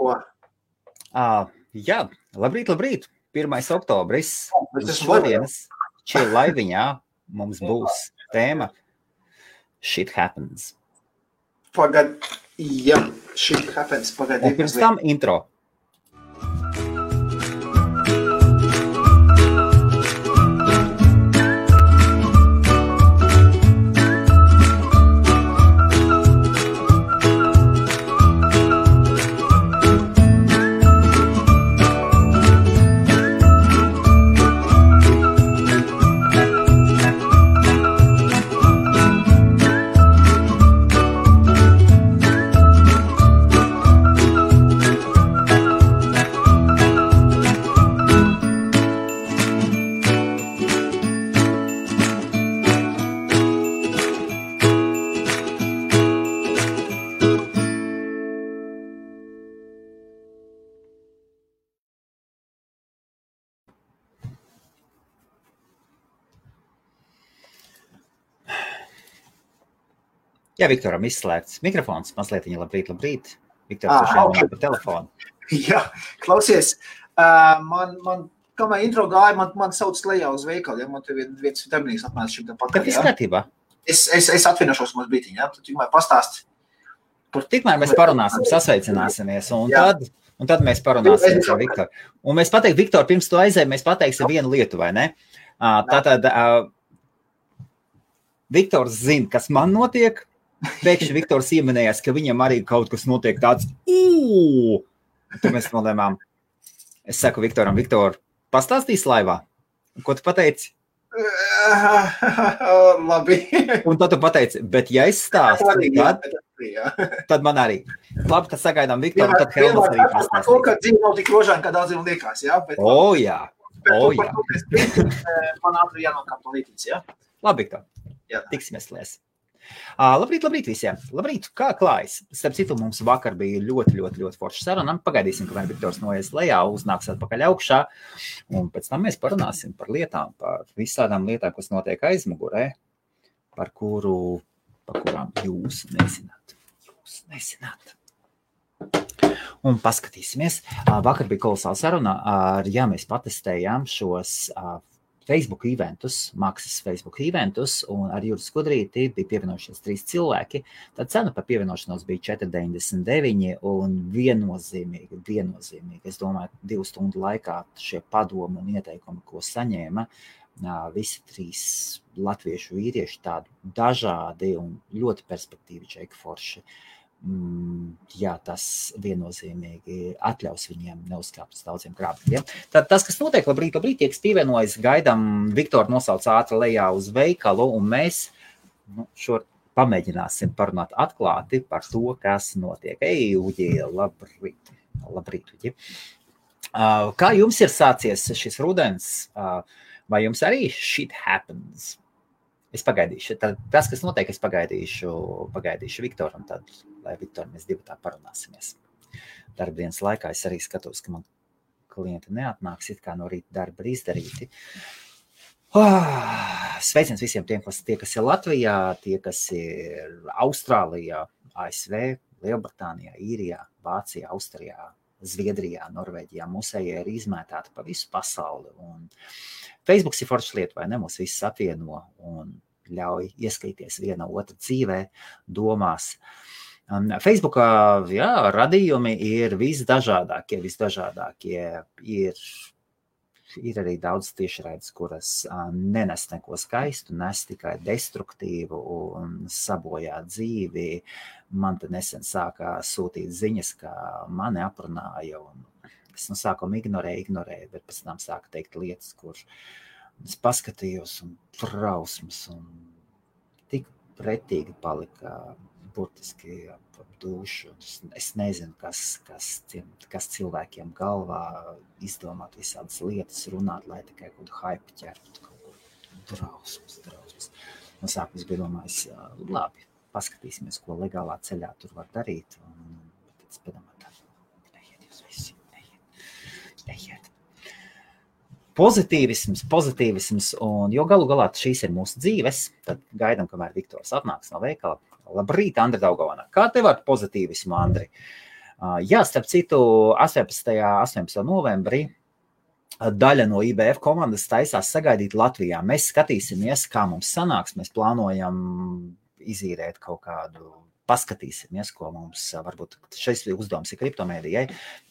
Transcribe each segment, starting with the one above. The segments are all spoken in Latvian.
ko? Jā, labrīt. 1. oktobris. Šodienas Chill laiviņā mums būs tēma Shit Happens. Shit Happens. Un pirms tam intro. Jā, Viktoram izslēgts mikrofons, mazliet viņa labrīt. Viktors šeit pa telefonu. Jā, klausies, kamēr intro gāja, man sauc lejā uz veikalu, ja man te viens darbinīgs apmērs šim pakaļ. Tad viss kārtībā. Es atvienošos mums brītiņ, ja? Tad tikmēr pastāst. Tikmēr mēs parunāsim, sasveicināsimies, un tad mēs parunāsim ar Viktoru. Un mēs pateiksim, Viktor, pirms tu aizēji, mēs pateiksim vienu lietu, vai ne? Tātad Viktors zina, kas man notiek. Pēkšņi Viktors ieminējās, ka viņam arī kaut kas notiek tāds. Tad mēs nolēmām. Es saku Viktoram, Viktor, pastāstīsi laivā? Ko tu pateici? Labi. Un tad tu pateici, bet ja es stāstu, tad man arī. Labi, tad sagaidām Viktoru, tad Helmas arī pastāstīs. To, ka dzīve nav tik rožāna, kā daudziem liekas, jā? Jā. Man ātri jānokāp to lītīts, jā? Labi, Viktor. Tiksimies lies. Labrīt visiem. Labrīt, kā klājas? Starp citu, mums vakar bija ļoti forša saruna. Pagaidīsim, kamēr Viktors noies lejā, uznāks atpakaļ augšā. Un pēc tam mēs parunāsim par lietām, par visādām lietām, kas notiek aizmugurē, par kurām jūs nezināt. Un paskatīsimies. Vakar bija kolosāla saruna. Mēs patestējām šos Facebook eventus, maksas Facebook eventus, un ar Juris Skudrīti bija pievienojušies 3 cilvēki. Tad cena par pievienošanos bija 4,99 un viennozīmīgi. Es domāju, 2 stundu laikā šie padomi un ieteikumi, ko saņēma, visi 3 latviešu vīrieši tādi dažādi un ļoti perspektīvi čeki forši. Jā, tas viennozīmīgi atļaus viņiem neuzkāpt uz daudziem grābļiem. Tad tas, kas notiek, labrīt, tie, kas pievienojas, gaidām Viktoru nosauc ātri lejā uz veikalu, un mēs pamēģināsim parunāt atklāti par to, kas notiek. Uģi, labrīt, Uģi. Kā jums ir sācies šis rudens? Vai jums arī shit happens? Es pagaidīšu. Tas, kas notiek, es pagaidīšu Viktoru, un tad, lai Viktoru mēs divi tā parunāsimies. Darbdienas laikā es arī skatos, ka man klienti neatnāks, it kā no rīta darba ir izdarīti. Sveiciens visiem tiem, kas ir Latvijā, tie, kas ir Austrālijā, ASV, Lielbritānijā, Īrijā, Vācijā, Austrijā, Zviedrijā, Norvēģijā. Mūsējie ir izmētāti pa visu pasauli. Un Facebooks ir forša lieta, vai ne? Mūs visus apvieno un ļauj ieskatīties viena otra dzīvē, domās. Facebookā, radījumi ir visdažādākie. Ir arī daudz tiešraides, kuras nenes neko skaistu, nes tikai destruktīvu un sabojā dzīvi. Man te nesen sākā sūtīt ziņas, ka mani aprunāja, un es no sākuma ignorēju, bet pēc tam sāku teikt lietas, kur es paskatījos un trausmas, un tik pretīgi palika burtiski ap dušu. Es nezinu, kas cilvēkiem galvā izdomāt visādas lietas, runāt, lai tikai kaut hype ķertu, kaut drausmas. No sākums bija domājis, labi, paskatīsimies, ko legālā ceļā tur var darīt, un tad es padomāju, ejiet jūs visi, ejiet. Pozitīvisms, un jo galu galā šīs ir mūsu dzīves, tad gaidām, kamēr Viktors atnāks no veikala. Labrīt, Andri Daugavana. Kā tev ar pozitīvismu, Andri? Jā, starp citu, 18. novembrī daļa no IBF komandas taisās sagaidīt Latvijā. Mēs skatīsimies, kā mums sanāks. Mēs plānojam izīrēt kaut kādu, paskatīsimies, ko mums, varbūt šis uzdevums ir kriptomēdijai,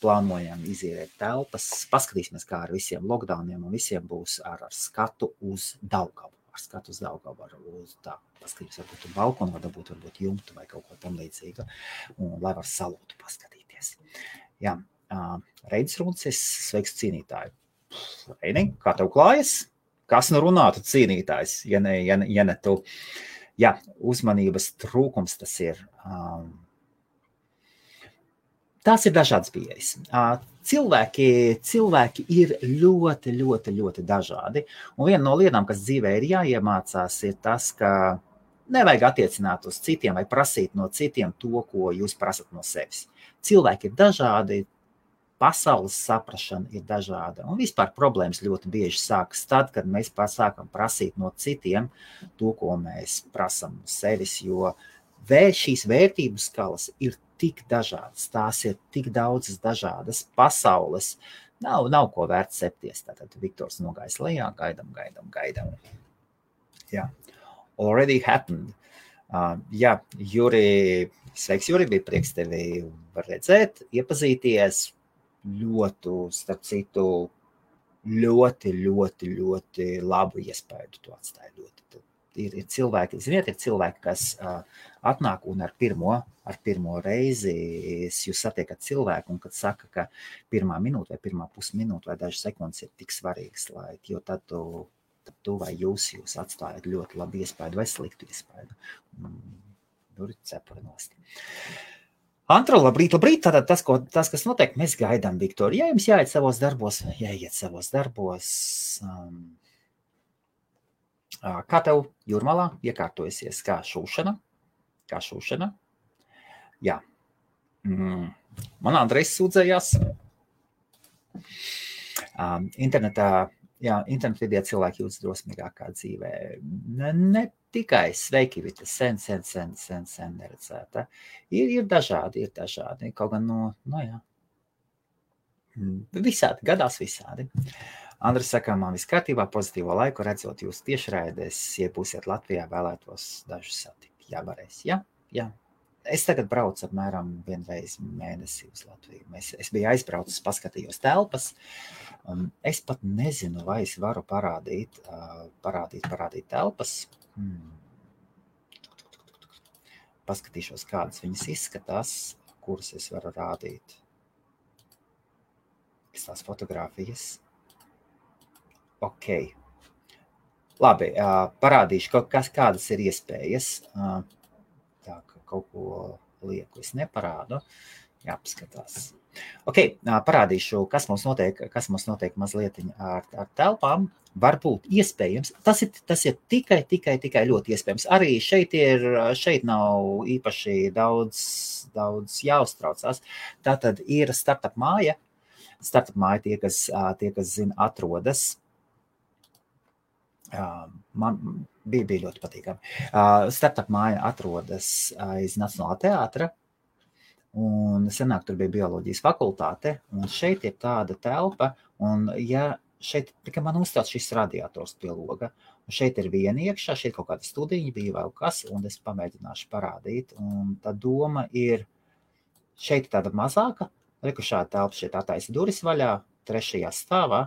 plānojam izīrēt telpas, paskatīsimies, kā ar visiem lockdowniem un visiem būs ar skatu uz Daugavu. Ar skatu uz Daugavu, tā, paskatījums varbūt uz balkonu, varbūt jumtu vai kaut ko tam līdzīga, un lai var salūtu paskatīties. Jā, Reidis Runcis, sveiks cīnītāji. Reini, kā tev klājas? Kas nu runātu cīnītājs, ja ne tu? Jā, uzmanības trūkums tas ir. Tās ir dažādas pieejas. Cilvēki ir ļoti, ļoti, ļoti dažādi. Un viena no lietām, kas dzīvē ir jāiemācās, ir tas, ka nevajag attiecināt uz citiem vai prasīt no citiem to, ko jūs prasat no sevis. Cilvēki ir dažādi, pasaules saprašana ir dažāda. Un vispār problēmas ļoti bieži sākas tad, kad mēs sākam prasīt no citiem to, ko mēs prasam no sevis, jo šīs vērtību skalas ir tik dažādas, tās ir tik daudzas dažādas pasaules. Nav ko vērts septies. Tātad Viktors nogājis lejā, gaidam. Jā. Already happened. Jā, Juri, sveiks Juri, bija prieks tevi redzēt, iepazīties. Starp citu, ļoti labu iespēju tu atstāji. Ir cilvēki, ziniet, kas atnāk un ar pirmo reizi jūs satiekat cilvēku un kad saka, ka pirmā minūte vai pirmā pusminūte vai dažas sekundes ir tik svarīgas, jo tad tu vai jūs atstājat ļoti labu iespēju vai sliktu iespēju. Tur ir cepurinost. Antro, labrīt. Tātad tas, kas notiek, mēs gaidām Viktoru. Ja jums jāiet savos darbos, kā tev Jūrmalā iekārtojusies, kā šūšana? Jā. Man Andrejs sūdzējās. Internet vidē cilvēki jūtas drosmīgākā dzīvē. Ne tikai sveiki, bet sen neredzēta. Ir dažādi. Kaut gan visādi, gadās visādi. Andris saka, man viss kārtībā, pozitīvo laiku, redzot jūs tiešraidēs, ja būsiet Latvijā, vēlētos dažus satikt. Jā, varēs. Jā. Es tagad braucu apmēram vienreiz mēnesī uz Latviju. Es biju aizbraucis, paskatījos telpas. Es pat nezinu, vai es varu parādīt telpas. Paskatīšos, kādas viņas izskatās, kuras es varu rādīt. Tās fotogrāfijas. Ok. Labi, parādīšu, kādas ir iespējas. Tā, ka kaut ko lieku es neparādu. Jāpaskatās. Ok, parādīšu, kas mums notiek mazliet ar telpām. Varbūt iespējams. Tas ir tikai ļoti iespējams. Arī šeit nav īpaši daudz jāuztraucās. Tātad ir startup māja. Startup māja tie, kas zina, atrodas. Man bija ļoti patīkami. Startup māja atrodas aiz Nacionālā teātra. Un senāk tur bija bioloģijas fakultāte, un šeit ir tāda telpa, un šeit tikai man uzstāts šis radiators pie loga, un šeit ir viena iekšā, šeit kaut kāda studiņa bija vēl kas, un es pamēģināšu parādīt, un tā doma ir, šeit tāda mazāka, šāda telpa, šeit attaisa duris vaļā, 3. stāvā,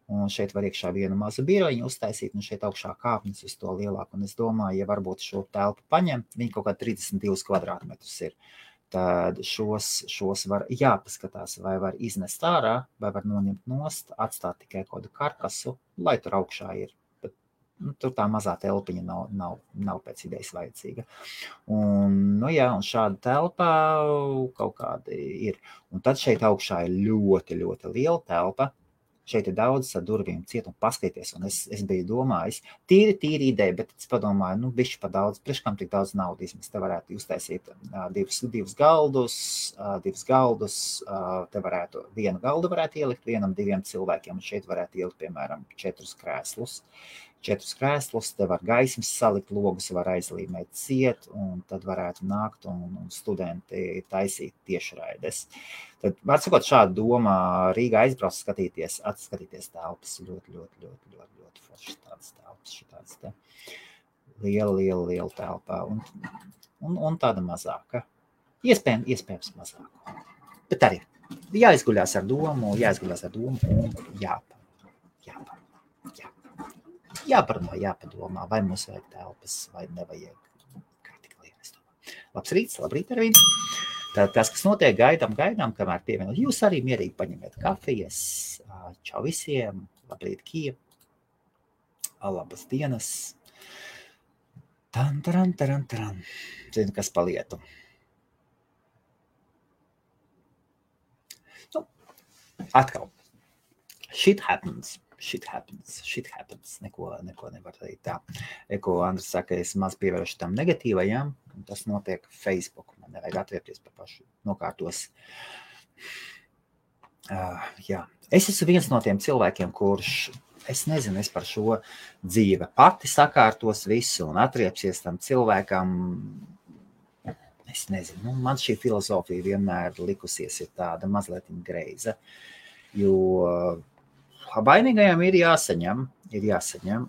un šeit var iekšā vienu mazu birojiņu uztaisīt, un šeit augšā kāpnes uz to lielāku, un es domāju, ja varbūt šo telpu paņem, viņi kaut kā 32 kvadrātmetrus ir. Tad šos var jāpaskatās, vai var iznest ārā, vai var noņemt nost, atstāt tikai kādu karkasu, lai tur augšā ir. Bet, tur tā mazā telpiņa nav pēc idejas vajadzīga. Un šāda telpa kaut kāda ir. Un tad šeit augšā ir ļoti, ļoti liela telpa. Šeit ir daudz ar durvīm ciet un paskaties, un es biju domājis, tīri ideja, bet es padomāju, bišķi pa daudz, priekškam tik daudz naudas, mēs te varētu uztaisīt divus galdus, te varētu, vienu galdu varētu ielikt 1-2 cilvēkiem, un šeit varētu ielikt, piemēram, 4 krēslus. 4 krēslus, te var gaismas salikt, logus var aizlīmēt ciet, un tad varētu nākt un studenti taisīt tiešraides. Tad, var sakot, šādu domā Rīgā aizbrauc skatīties telpas, ļoti foršas tādas telpas, šitādas te liela telpā, un tāda mazāka. Iespējams mazāka. Bet arī jāizguļās ar domu un jāpadomā, vai mums vajag telpas, vai nevajag. Kā tik liekas domā. Labrīt ar viņu. Tad tas, kas notiek, gaidām, kamēr pievienot. Jūs arī mierīgi paņemiet kafijas. Čau visiem. Labrīt, Kija. Labas dienas. Taran. Zinu, kas pa lietu. Atkal. Shit happens. Neko nevar teikt tā. Ko Andris saka, es maz pievēršu tam negatīvajām, un tas notiek Facebook. Man nevajag atviepties par pašu nokārtos. Jā. Es esmu viens no tiem cilvēkiem, kurš, es nezinu, es par šo dzīve pati sakārtos visu un atriepsies tam cilvēkam. Es nezinu, man šī filozofija vienmēr likusies ir tāda mazliet greiza, jo vainīgajam ir jāsaņem,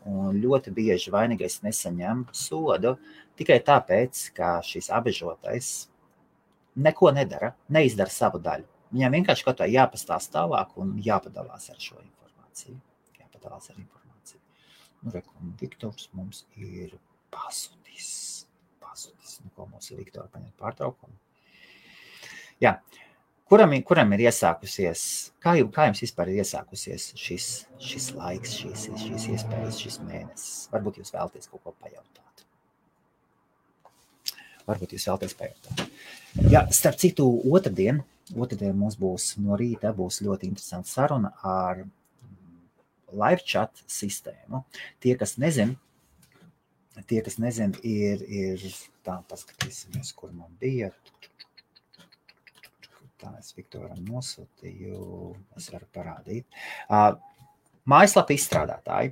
un ļoti bieži vainīgais nesaņem sodu tikai tāpēc, ka šis apbežotais neko nedara, neizdara savu daļu. Viņam vienkārši kaut kā jāpastāst tālāk un jāpadalās ar šo informāciju. Viktors mums ir pazudis. Ko mums ir Viktora paņemt pārtraukumu? Jā. Kuram ir iesākusies, kā jums vispār ir iesākusies šis laiks, šīs iespējas, šis mēnesis? Varbūt jūs vēlaties kaut ko pajautāt. Jā, starp citu, otrdien mums būs no rīta ļoti interesanta saruna ar live chat sistēmu. Tie, kas nezin, ir tā, paskatīsimies, kur man bija. Tā es Viktoram nosūtīju, es varu parādīt. Mājaslapa izstrādātāji.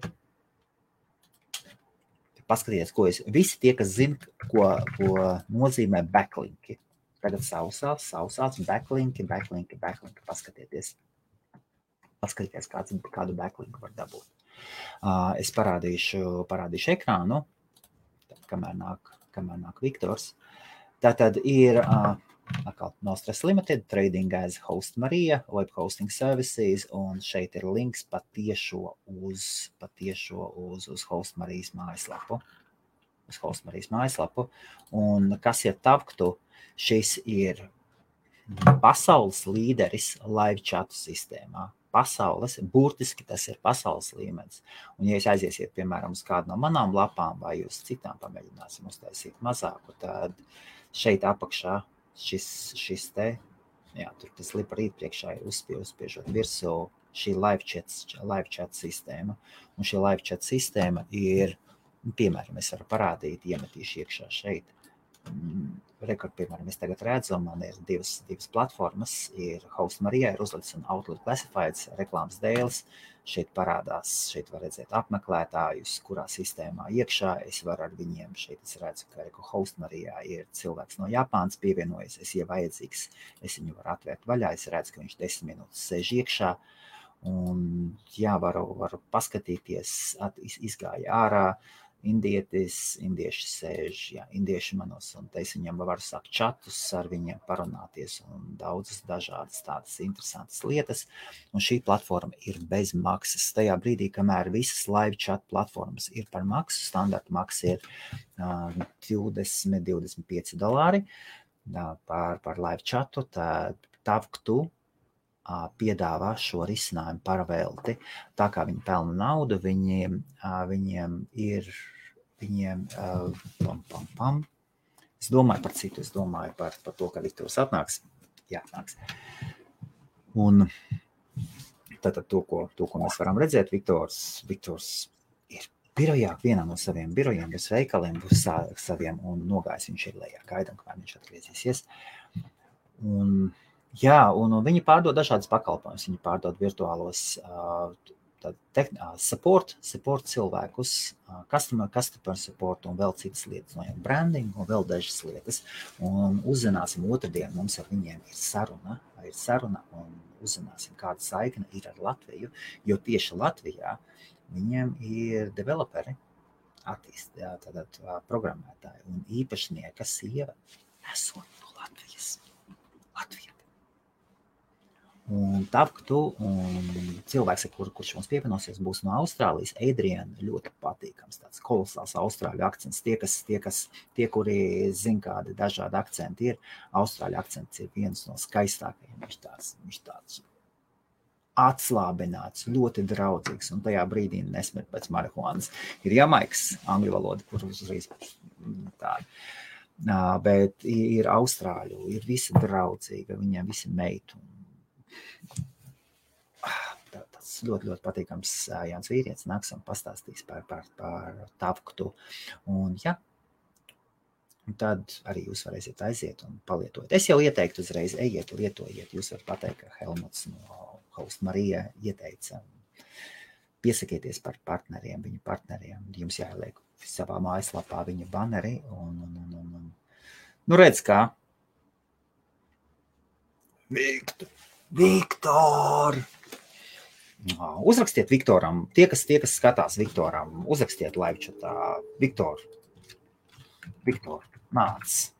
Paskatieties, visi tie, kas zina, ko nozīmē backlinki. Tagad sausāts backlinki. Paskatieties, kādu backlinku var dabūt. Es parādīšu ekrānu, kamēr nāk Viktors. Tātad ir Nostras Limited, Trading as Host Marija, Web Hosting Services, un šeit ir links patiešo uz Host Marijas mājaslapu. Un kas ir Tavktu, šis ir pasaules līderis live chatu sistēmā. Burtiski tas ir pasaules līmenis. Un, ja jūs aiziesiet, piemēram, uz kādu no manām lapām vai uz citām pamēģināsim uztaisīt mazāku, tad šeit apakšā šis te, jā, tur tas lipa rīt priekšā ir uzspiežot virsū šī live chat sistēma. Un šī live chat sistēma ir, piemēram, es varu parādīt, iemetīšu iekšā šeit. Piemēram, es tagad redzu, man ir divas platformas, ir Host Marija, ir uzlicis un Outlook Classifieds reklāmas dēles. Šeit parādās, šeit var redzēt apmeklētājus, kurā sistēmā iekšā. Es varu ar viņiem, šeit es redzu, ka Host Marijā ir cilvēks no Japānas pievienojas, ja vajadzīgs, es viņu varu atvērt vaļā, es redzu, ka viņš 10 minūtes sēž iekšā. Un jā, varu paskatīties, izgāja ārā. Indieši sēž, indieši manos, un te es viņam varu sākt čatus ar viņiem parunāties un daudzas dažādas tādas interesantas lietas. Un šī platforma ir bez maksas. Tajā brīdī, kamēr visas live chat platformas ir par maksu, standarta maksa ir $20–25 par live chatu, tad Tavktu piedāvā šo risinājumu par velti. Tā kā viņi pelna naudu, viņiem ir, Es domāju par citu, es domāju par to, ka Viktors atnāks. Jā, atnāks. Un tātad to, ko mēs varam redzēt, Viktors ir birojā, vienā no saviem birojiem, bez veikaliem, bez saviem, un nogājis viņš ir lejā. Gaidam, kamēr viņš atgriezīsies. Un viņi pārdod dažādas pakalpojumus. Viņi pārdod virtuālos support cilvēkus, customer support un vēl citas lietas, no branding un vēl dažas lietas. Un uzzināsim otrdien, mums ar viņiem ir saruna un uzzināsim, kāda saikne ir ar Latviju, jo tieši Latvijā viņiem ir developeri, tātad programmētāji un īpašnieka sieva esot no Latvijas. Un Tavktu un cilvēks, kurš mums pievienosies, būs no Austrālijas. Adriana ļoti patīkams, tāds kolosāls austrāļu akcents. Tie, kuri zina, kādi dažādi akcenti ir, austrāļu akcents ir viens no skaistākajiem. Viņš tāds atslābināts, ļoti draudzīgs, un tajā brīdī nesmet pēc marihuānas. Ir Jamaikas angļu valoda, kur uzreiz tāda. Bet ir austrāļu, ir visi draudzīga, viņiem visi meitu. Tas ļoti patīkams Jānis Vīrietis nāks un pastāstīs par Tavktu. Un tad arī jūs varēsiet aiziet un palietot. Es jau ieteiktu uzreiz, ejiet, lietojiet. Jūs varat pateikt, ka Helmuts no Host Marija ieteica. Piesakieties par partneriem, viņu partneriem. Jums jāieliek savā mājaslapā viņa baneri. Nu redz kā. Viktor! Uzrakstiet Viktoram, tie, kas skatās Viktoram, uzrakstiet laivčatā. Viktor, nāc.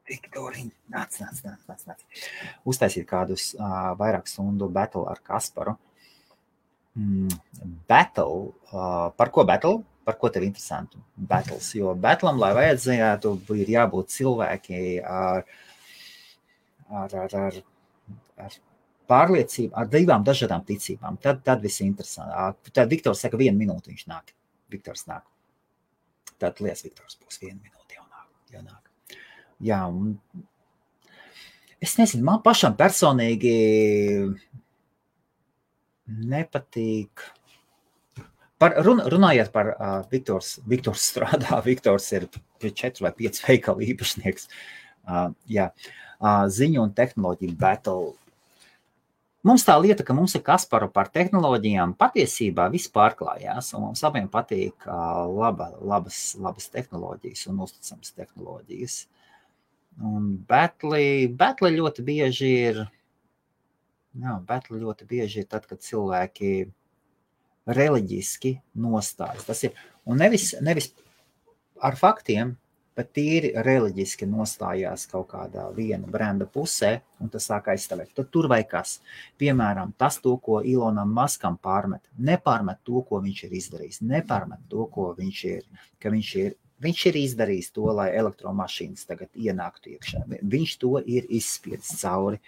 Viktoriņ, nāc. Uztaisīt kādus vairāk stundu battle ar Kasparu. Battle, par ko battle? Par ko tev interesantu? Battles, jo battlam, lai vajadzētu, ir jābūt cilvēki ar pārliecību, ar divām dažādām ticībām. Tad viss interesanti. Tad Viktors saka, 1 minūte viņš nāk. Viktors nāk. Tad lies Viktors būs 1 minūte jau nāk. Jā, un es nezinu, man pašam personīgi nepatīk. Runājot par Viktors strādā, Viktors ir 4 vai 5 veikalu īpašnieks. Ziņu un tehnoloģiju battle. Mums tā lieta, ka mums ir Kasparu par tehnoloģijām, patiesībā viss pārklājās, un mums abiem patīk labas tehnoloģijas un uzticams tehnoloģijas. Un battle ļoti bieži ir, tad, kad cilvēki reliģiski nostājas. Tas ir, un nevis ar faktiem, bet tīri reliģiski nostājās kaut kādā viena brenda pusē, un tas sāk aizstāvēt. Tad tur vai kas. Piemēram, tas to, ko Elonam Muskam pārmet. Nepārmet to, ko viņš ir izdarījis. Nepārmet to, ko viņš ir izdarījis to, lai elektromašīnas tagad ienāktu iekšā. Viņš to ir izspiedis cauri.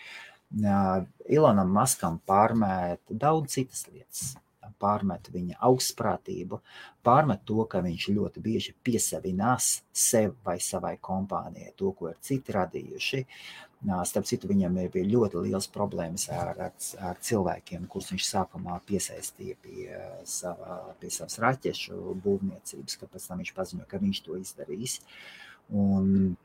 Elonam Muskam pārmet daudz citas lietas. Pārmet viņa augstprātību, pārmet to, ka viņš ļoti bieži piesavinās sev vai savai kompānijai, to, ko ir citi radījuši. Starp citu, viņam bija ļoti liels problēmas ar cilvēkiem, kurus viņš sākumā piesaistīja pie savas raķešu būvniecības, ka pēc tam viņš paziņoja, ka viņš to izdarīs. Un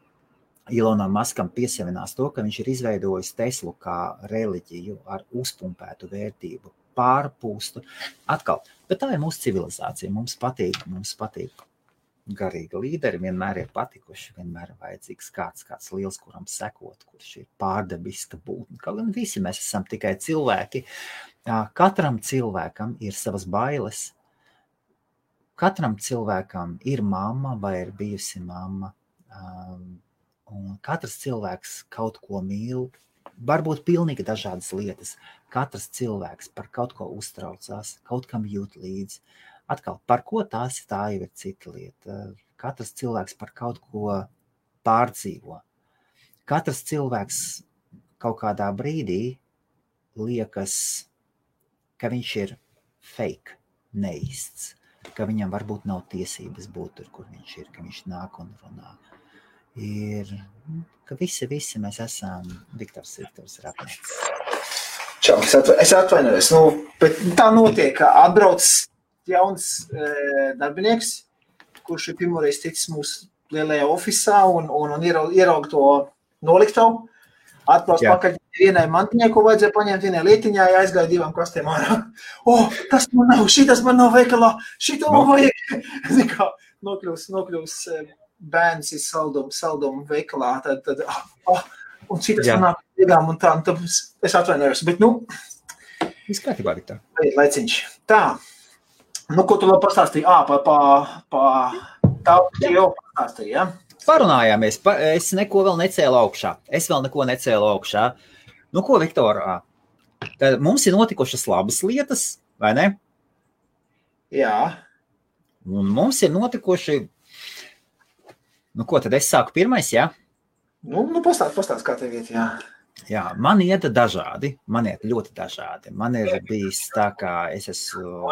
Elonam Muskam piesavinās to, ka viņš ir izveidojis Teslu kā reliģiju ar uzpumpētu vērtību, pārpūstu. Atkal, bet tā ir mūsu civilizācija. Mums patīk garīgi līderi, vienmēr ir patikuši, vienmēr ir vajadzīgs kāds liels, kuram sekot, kurš ir pārdabiska būtne. Kaut gan visi mēs esam tikai cilvēki. Katram cilvēkam ir savas bailes. Katram cilvēkam ir mamma vai ir bijusi mamma. Un katrs cilvēks kaut ko mīl. Varbūt pilnīgi dažādas lietas. Katrs cilvēks par kaut ko uztraucās, kaut kam jūt līdzi. Atkal, par ko tā jau ir cita lieta. Katrs cilvēks par kaut ko pārdzīvo. Katrs cilvēks kaut kādā brīdī liekas, ka viņš ir fake, neīsts, ka viņam varbūt nav tiesības būt tur, kur viņš ir, ka viņš nāk un runā. Ka visi mēs esam Viktors ir apnieks. Čau, es atvainojos, bet tā notiek, ka atbrauc jauns darbinieks, kurš ir pirmoreiz ticis mūsu lielajā ofisā un ieraug to noliktavu. Atbrauc pakaļ vienai mantiņai, ko vajadzēja paņemt vienai lietiņā, aizgāja 2 kastēm ārā. Tas man nav, šitas man nav veikalā, šito man vajag. Nokļūs bērns ir saldumu veikalā, tad un šitas man nāk iegām un tā, un tad es atvainojos, bet Viss kārtībā, Viktor. Laiciņš. Tā, ko tu vēl pastāstīji? Tā jau pastāstīji, ja? Parunājāmies, es neko vēl necēlu augšā. Ko, Viktor, tad mums ir notikušas labas lietas, vai ne? Jā. Un mums ir notikuši, ko tad es sāku pirmais, jā? Pastāst, kā tev iet, jā. Jā, man iet ļoti dažādi. Man ir bijis tā, kā es esmu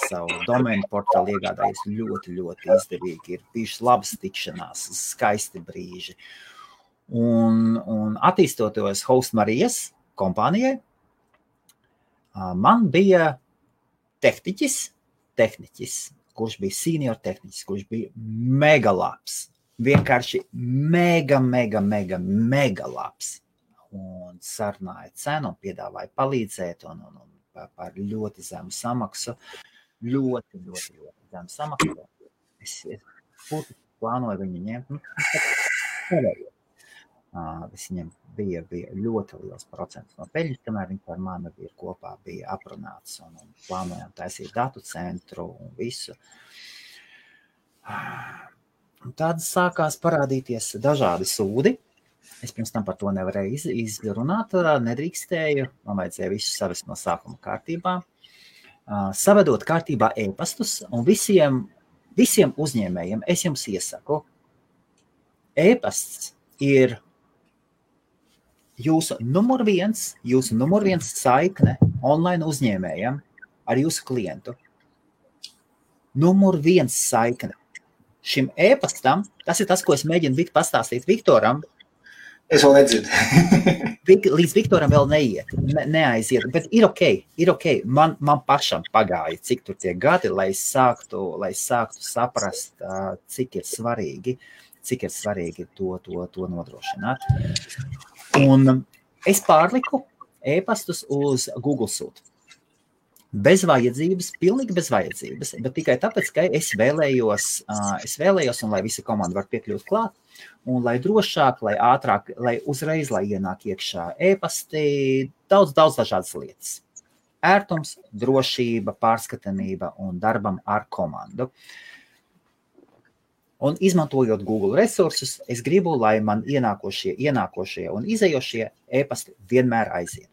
savu domēnu portālu iegādājies ļoti, ļoti izdevīgi. Ir bijušas labas tikšanās, skaisti brīži. Un attīstoties Host Marijas kompānijai, man bija tehniķis, kurš bija senior tehniķis, kurš bija mega labs. Vienkārši mega labs. Un sarunāja cenu un piedāvāja palīdzēt un par ļoti zemu samaksu. Ļoti zemu samaksu. Es plānoju viņu ņemt. Viņam bija ļoti liels procents no peļņas, kamēr viņi par mani bija aprunāts un plānojām taisīt datu centru un visu. Un tad sākās parādīties dažādi sūdi. Es pirms tam par to nevarēju izrunāt, nedrīkstēju, man vajadzēja visu savest no sākuma kārtībā. Savedot kārtībā e-pastus un visiem uzņēmējiem es jums iesaku, e-pasts ir jūsu numur viens saikne online uzņēmējam ar jūsu klientu. Numur viens saikne. Šim e-pastam, tas ir tas, ko es mēģinu pastāstīt Viktoram. Es vēl nedzirdu. Līdz Viktoram vēl neaiziet, bet ir ok. Man pašam pagāja, cik tur tie gadi, lai sāktu saprast, cik ir svarīgi to nodrošināt. Un es pārliku e-pastus uz Google Suite. Pilnīgi bez vajadzības, bet tikai tāpēc, ka es vēlējos, un lai visa komanda var piekļūt klāt, un lai drošāk, lai ātrāk, lai uzreiz, lai ienāk iekšā e-pasti, daudz dažādas lietas. Ērtums, drošība, pārskatāmība un darbam ar komandu. Un izmantojot Google resursus, es gribu, lai man ienākošie un izējošie e-pasti vienmēr aiziet.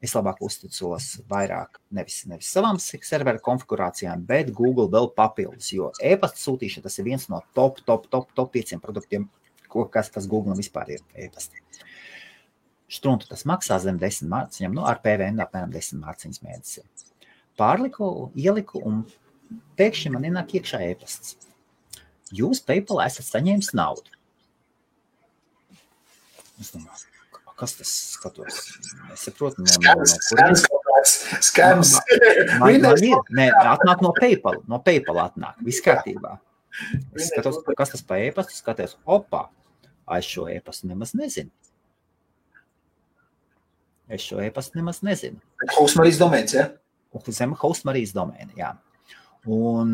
Es labāk uzticos vairāk nevis savām serveru konfigurācijām, bet Google vēl papildus, jo e-pasta sūtīšana tas ir viens no top 5 produktiem, kas Google vispār ir e-pasti. Štruntu tas maksā zem 10 mārciņām, ar PVN apmēram 10 mārciņas mēnesī. Pārliku, ieliku un pēkšņi man ienāk iekšā e-pasts. Jūs PayPal esat saņēmis naudu. Es domāju, kas tas skatos? Es saprotu, Skams. Atnāk no PayPal atnāk, viss kārtībā. Es skatos, kas tas pa e-pastu, skaties, es šo e-pastu nemaz nezinu. Host Marijas domēns, ja? Zem Host Marijas domēna, jā. Un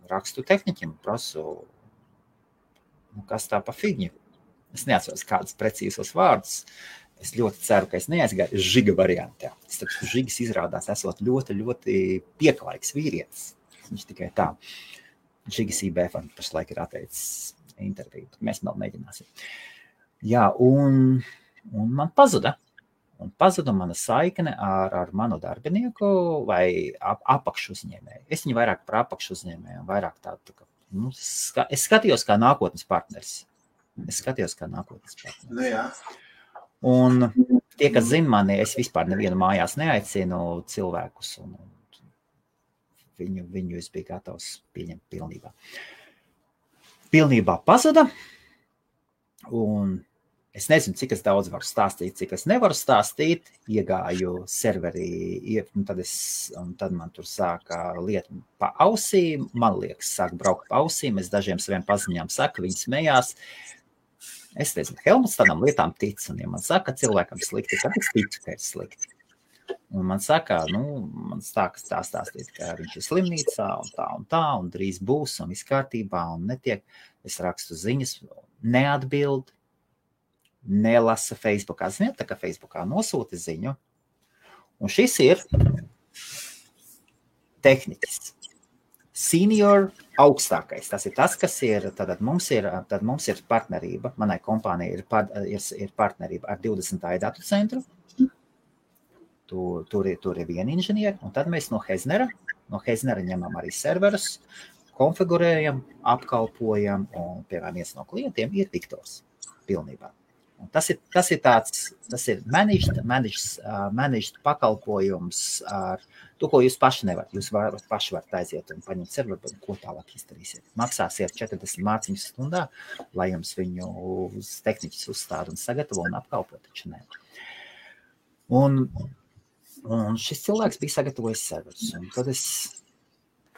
rakstu tehniķim, prasu, kas tā pa figņu. Es neatceros kādus precīzos vārdus. Es ļoti ceru, ka es neaizgāju žiga variantā. Žigas izrādās esot ļoti, ļoti pieklājīgs vīrietis. Viņš tikai tā. Žigas IBF pašlaik ir atteicis interviju. Mēs vēl mēģināsim. Jā, un man pazuda. Un pazuda mana saikne ar manu darbinieku vai apakšu uzņēmēju. Es viņu vairāk par apakšu uzņēmēju un vairāk tādu, es skatījos kā nākotnes partneris. Nu, jā. Un tie, kas zina mani, es vispār nevienu mājās neaicinu cilvēkus, un viņu es biju gatavs pieņemt pilnībā. Pilnībā pazuda, un Es nezinu, cik es daudz varu stāstīt, cik es nevaru stāstīt. Iegāju serverī, tad man tur sāka lieta pa ausīm. Man liekas, sāk braukt pa ausīm. Es dažiem saviem paziņām saku, viņi smējās. Es nezinu, Helmuts tādām lietām tic. Un ja man saka, cilvēkam slikti, tad es ticu, ka ir slikti. Un man saka, man stākas tā stāstīt, ka viņš ir slimnīcā un tā, un drīz būs, un viss kārtībā, un netiek. Es rakstu ziņas, neatbild. Nelasa Facebookā. Ziniet, tā kā Facebookā nosūta ziņu. Un šis ir tehniķis. Senior augstākais. Tas ir tas, kas ir, tad mums ir partnerība. Manai kompānijai ir partnerība ar 20. datu centru. Tur ir viena inženieri. Un tad mēs no Heznera ņemam arī serverus, konfigurējam, apkalpojam. Un, piemēram, viens no klientiem ir Viktors pilnībā. Un tas ir managed pakalpojums ar to, ko jūs paši nevarat. Jūs paši varat aiziet un paņemt serveru, bet ko tālāk izdarīsiet. Maksāsiet 40 mārciņas stundā, lai jums viņu tehniķis uzstāda un sagatavo un apkalpo, taču ne. Un šis cilvēks bija sagatavojis serverus. Un tad es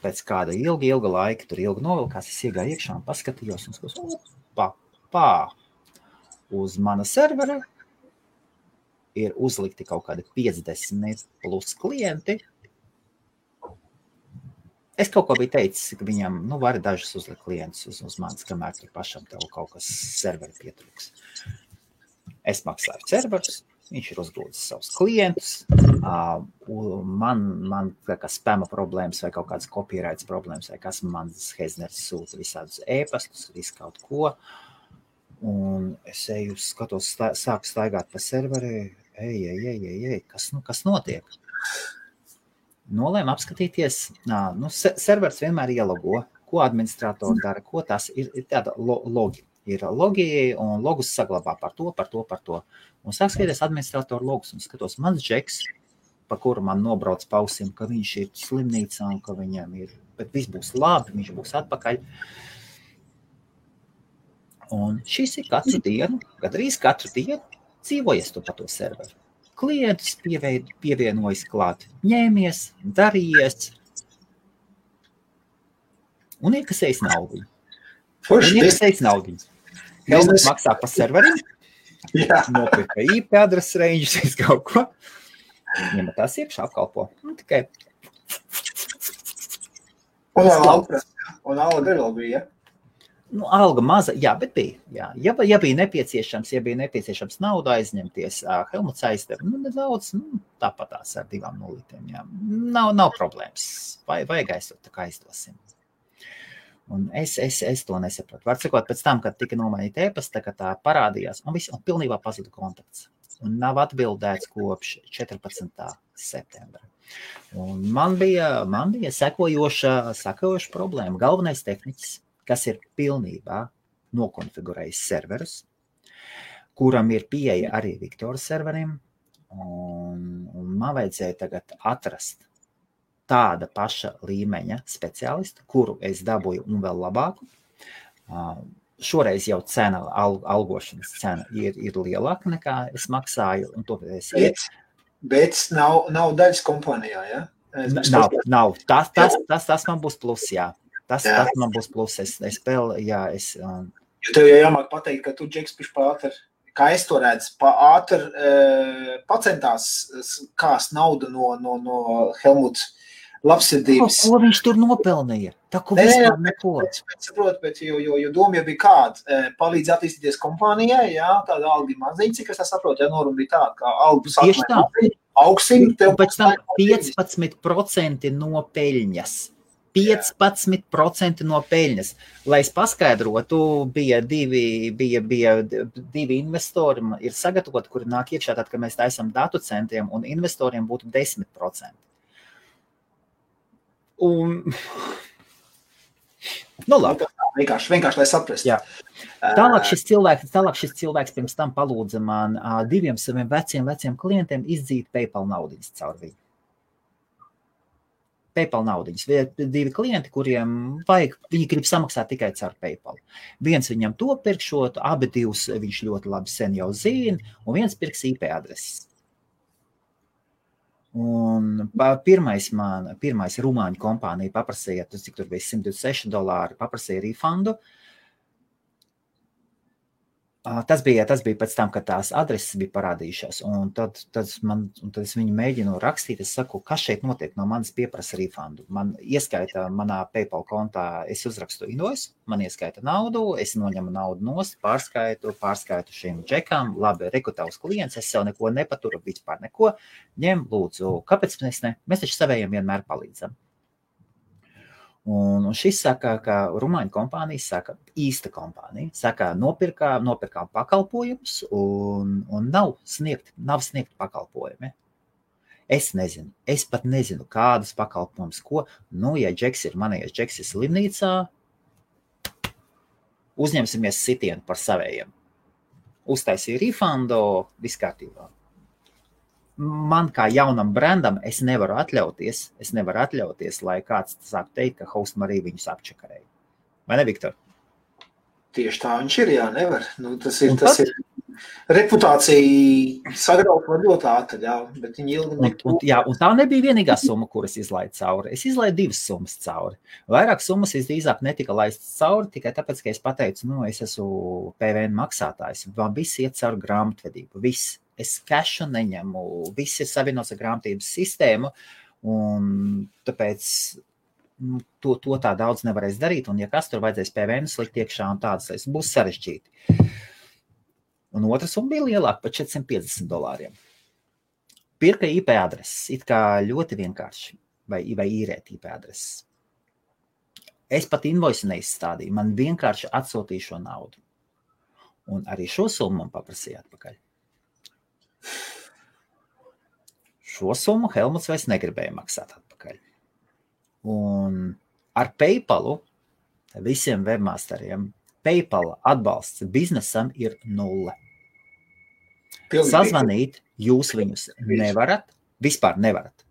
pēc kāda ilga laika, tur ilgi novilkās, es iegāju iekšā un paskatījos un skatījos, uz mana servera ir uzlikti kaut kādi 50 plus klienti. Es kaut ko biju teicis, ka viņam, var dažus uzlikt klientus uz manis, kamēr tur pašam tev kaut kas serveri pietrūks. Es maksāju serverus, viņš ir uzgrūdis savus klientus, man kā spama problēmas vai kaut kādas copyrights problēmas, vai kas man Hezners sūta visādus e-pastus, visu kaut ko. Un es eju, skatos, sāku staigāt pa serveri, kas notiek? Nolēmu apskatīties, servers vienmēr ielogo, ko administratori dara, ko tas ir tāda logi. Ir logi un logus saglabā par to. Un sāk skatīties administratoru logus un skatos, mans džeks, pa kuru man nobrauc pausim, ka viņš ir slimnīcā un ka viņam ir, bet viss būs labi, viņš būs atpakaļ. Un šis ir gandrīz katru dienu dzīvojies tu pa to serveru. Klientus pievienojas klāt, ņēmies, darījies un iekasējis naudu. Helmuts maksā pa serveriem, nopirka IP adreses ranges, kaut ko. Ņemat tās iekšā apkalpo. Tikai. Un alga vēl bija, Alga maza, bet bija. Ja bija nepieciešams naudu aizņemties, Helmuts aizdev, nedaudz, tāpatās ar 2 nulītēm, jā. Nav problēmas. Vajag aizsot, tā kā aizdosim. Un es to nesapratu. Var sakot, pēc tam, kad tika nomainīta e-pasta, ka tā parādījās, un pilnībā pazuda kontakts. Un nav atbildēts kopš 14. septembra. Un man bija sekojoša problēma. Galvenais tehniķis, kas ir pilnībā nokonfigurējis serverus, kuram ir pieeja arī Viktora serveriem, un man vajadzēja tagad atrast tāda paša līmeņa speciālistu, kuru es dabūju un vēl labāku. Šoreiz jau cena, algošanas cena ir lielāka nekā es maksāju, un to es Bet nav daļas kompānijā, ja? Nav. Tas man būs plus, jā. Tas man būs plus. Jo tev jau jāmāk pateikt, ka tu, Džeks, pātri, kā es to redzu, pacentās kās naudu no Helmuts labsirdības. Ko viņš tur nopelnīja? Tā, ko vispār neko. Saprotu, bet jo doma jau bija kāda, palīdz attīstīties kompānijai, jā, tāda alga maziņa, cik es tā saprotu, ja norma bija tāda, kā algu sākumā augsim. Pēc tam 15% no peļņas. 15% no peļņas. Lai es paskaidrotu, bija divi investori, ir sagatavoti, kuri nāk iekšā, tad, kad mēs taisam datu centriem, un investoriem būtu 10%. Un... labi. Vienkārši, lai saprast. Jā. Tālāk šis cilvēks pirms tam palūdza man 2 saviem veciem klientiem izdzīt PayPal naudiņas caur viņu. PayPal naudiņas. Divi klienti, kuriem viņi grib samaksāt tikai caur PayPal. Viens viņam to pirkšot, abi divus viņš ļoti labi sen jau zina, un viens pirks IP adreses. Un pirmais rumāņu kompānija paprasīja, cik tur bija $126, paprasīja refundu. Tas bija pēc tam, kad tās adreses bija parādījušās, un tad es viņu mēģinu rakstīt, es saku, kas šeit notiek, no manis pieprasa refundu. Man ieskaita manā PayPal kontā, es uzrakstu invoice, man ieskaita naudu, es noņemu naudu nost, pārskaitu šiem džekām, labi, rekrutavs klients, es sev neko nepaturu, vispār neko, ņem, lūdzu, kāpēc mēs ne? Mēs taču savējiem vienmēr palīdzam. Un šis saka, ka rumāņu kompānija saka, īsta kompānija, saka, nopirkām pakalpojumus un nav sniegt pakalpojumi. Es pat nezinu, kādas pakalpojumus, ko, ja Džeks ir manējais, Džeks ir slimnīcā, uzņemsimies sitienu par savējiem. Uztaisīja refundu, viss kārtībā. Man kā jaunam brandam es nevaru atļauties, lai kāds sāk teikt, ka Host Marija viņus apčakarēja. Vai ne, Viktor? Tieši tā viņš ir, jā, nevar. Tas ir reputācija sagraut var ļoti ātri, jā, bet viņi ilgi un tā nebija vienīgā summa, kuras izlaidu cauri. Es izlaidu 2 summas cauri. Vairāk summas visdrīzāk netika laistas cauri, tikai tāpēc, ka es pateicu, es esmu PVN maksātājs. Man viss iet cauri grāmatvedību, viss. Es kešu neņemu, viss ir savienots ar grāmatības sistēmu, un tāpēc to tā daudz nevarēs darīt, un ja kas tur vajadzēs PVN slikt iekšā un tādas, būs sarežģīti. Un otra summa bija lielāka par $450. Pirka IP adreses, it kā ļoti vienkārši, vai īrēt IP adreses. Es pat invoice neizstādīju, man vienkārši atsūtīju šo naudu. Un arī šo summu man paprasīja atpakaļ. Šo summu Helmuts vairs negribēja maksāt atpakaļ. Un ar PayPalu, visiem webmasteriem, PayPal atbalsts biznesam ir 0. Sazvanīt jūs viņus nevarat, vispār nevarat.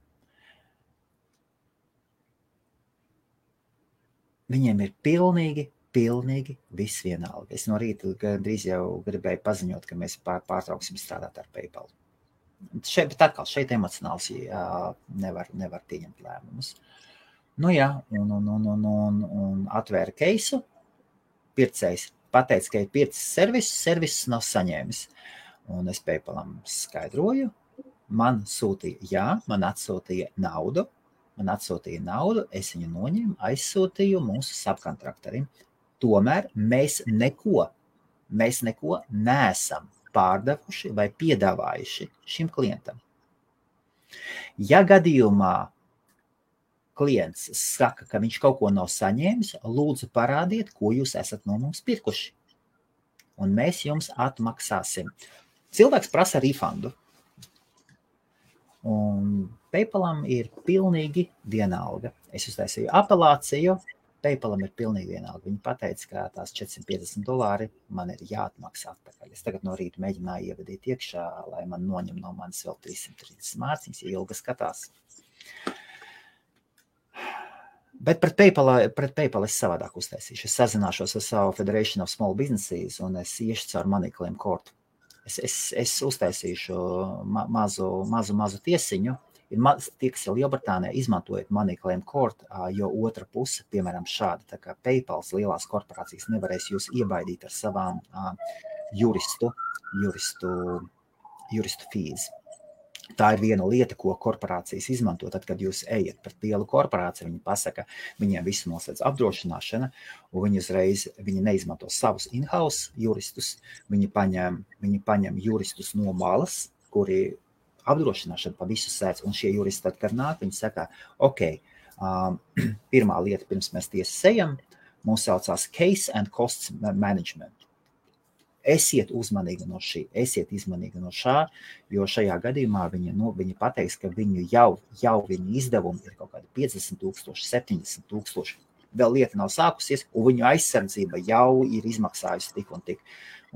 Viņiem ir pilnīgi viss vienalga. Es no rīta drīz jau gribēju paziņot, ka mēs pārtrauksim strādāt ar PayPal. Šeit emocionāls nevar pieņemt lēmumus. Un atvēra keisu, pircējs pateica, ka ir pircis servisus nav saņēmis. Un es PayPalam skaidroju, man atsūtīja naudu, es viņu noņēmu, aizsūtīju mūsu subkontraktorim. Tomēr mēs neko neesam pārdevuši vai piedāvājuši šim klientam. Ja gadījumā klients saka, ka viņš kaut ko nav saņēmis, lūdzu parādiet, ko jūs esat no mums pirkuši. Un mēs jums atmaksāsim. Cilvēks prasa refundu. Un PayPalam ir pilnīgi vienalga. Es uztaisīju apelāciju, PayPalam ir pilnīgi vienalga. Viņi pateica, ka tās $450 man ir jāatmaksā atpakaļ. Es tagad no rīta mēģināju ievadīt iekšā, lai man noņem no manis vēl 330 mārciņas, ja ilgi skatās. Bet pret PayPal es savādāk uztaisīšu. Es sazināšos ar savu Federation of Small Businesses un es iešu caur MoneyClaim kortu. Es uztaisīšu mazu tiesiņu. Tie, kas ir Lielbritānijā, izmantojot MoneyClaim kortu, jo otra puse, piemēram, šāda, tā kā PayPals lielās korporācijas nevarēs jūs iebaidīt ar savām juristu fees. Tā ir viena lieta, ko korporācijas izmanto, tad, kad jūs ejat pret lielu korporāciju, viņi pasaka, viņiem visu noslēdz apdrošināšana, un viņi neizmanto savus in-house juristus, viņi paņem juristus no malas, kuri apdrošināšana pa visu sēdz, un šie juristi tad, kad nāk, viņi saka, pirmā lieta, pirms mēs tiesas ejam, mums saucās case and costs management. Esiet uzmanīgi no šā, jo šajā gadījumā viņi pateiks, ka viņu jau viņu izdevumi ir kaut kādi 50,000, 70,000. Vēl lieta nav sākusies, un viņu aizsardzība jau ir izmaksājusi tik un tik.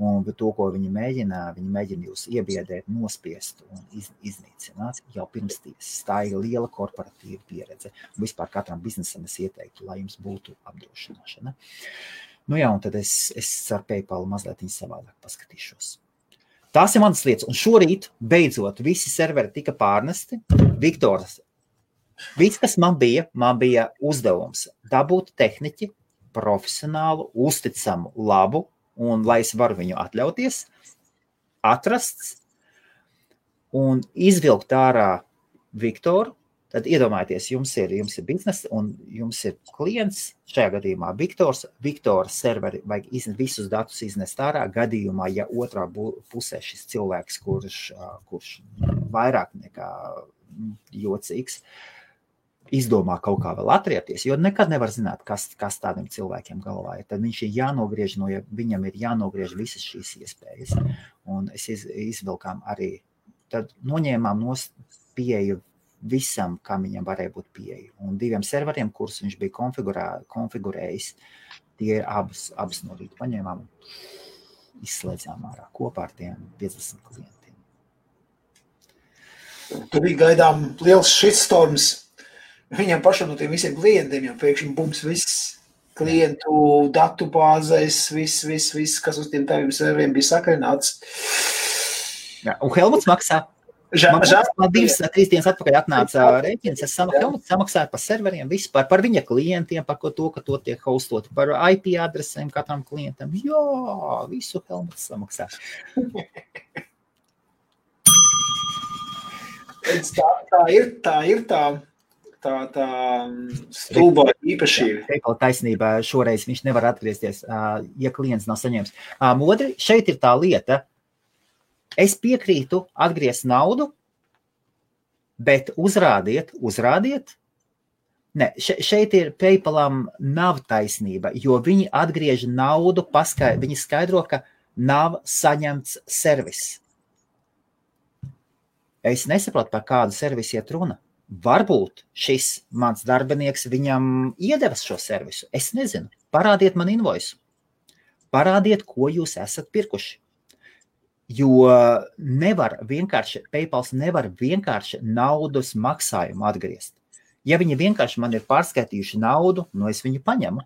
Un to, ko viņi mēģina jūs iebiedēt, nospiest un iznīcināt jau pirms tiesas. Tā ir liela korporatīva pieredze. Un vispār katram biznesam es ieteiktu, lai jums būtu apdrošināšana. Nu jā, un tad es ar PayPal mazliet savādāk paskatīšos. Tās ir manas lietas. Un šorīt, beidzot, visi serveri tika pārnesti. Viktors, viss, kas man bija uzdevums dabūt tehniķi, profesionālu, uzticamu, labu, un lai es varu viņu atļauties, atrasts un izvilkt ārā Viktoru, tad iedomājieties, jums ir biznesa un jums ir klients, šajā gadījumā Viktora serveri vajag visus datus iznest ārā, gadījumā, ja otrā pusē šis cilvēks, kurš vairāk nekā jocīgs, izdomā kaut kā vēl atriepties, jo nekad nevar zināt, kas tādiem cilvēkiem galvā ir. Tad viņš ir jānogriež, viņam ir jānogriež visas šīs iespējas. Un es izvilkām arī, tad noņēmām pieeju visam, kam viņam varēja būt pieeja. Un 2 serveriem, kurus viņš bija konfigurējis, tie abas no rīta paņēmām un izslēdzām ārā kopā ar tiem 50 klientiem. Tu bija gaidām liels shitstorms. Viņam pašam no tiem visiem klientiem jau pēkšņi bums viss klientu datu bāzēs, viss, kas uz tiem taviem serveriem bija sakarināts. Jā, un Helmuts maksā. Man 2-3 dienas atpakaļ atnāca rēķins, Helmuts samaksāja par serveriem, vispār par viņa klientiem, par to, ka to tiek hostoti, par IP adresēm katram klientam. Jā, visu Helmuts samaksā. Tā ir tā stulbā īpašība. PayPal taisnībā šoreiz viņš nevar atgriezties, ja klients nav saņēmis. Modri, šeit ir tā lieta. Es piekrītu atgriezt naudu, bet uzrādiet. Ne, šeit ir PayPalam nav taisnība, jo viņi atgriež naudu, viņi skaidro, ka nav saņemts servis. Es nesaprotu, par kādu servisu iet runa. Varbūt šis mans darbinieks viņam iedevis šo servisu. Es nezinu. Parādiet man invoisu. Parādiet, ko jūs esat pirkuši. Jo PayPals nevar vienkārši naudas maksājumu atgriezt. Ja viņi vienkārši man ir pārskaitījuši naudu, es viņu paņemu.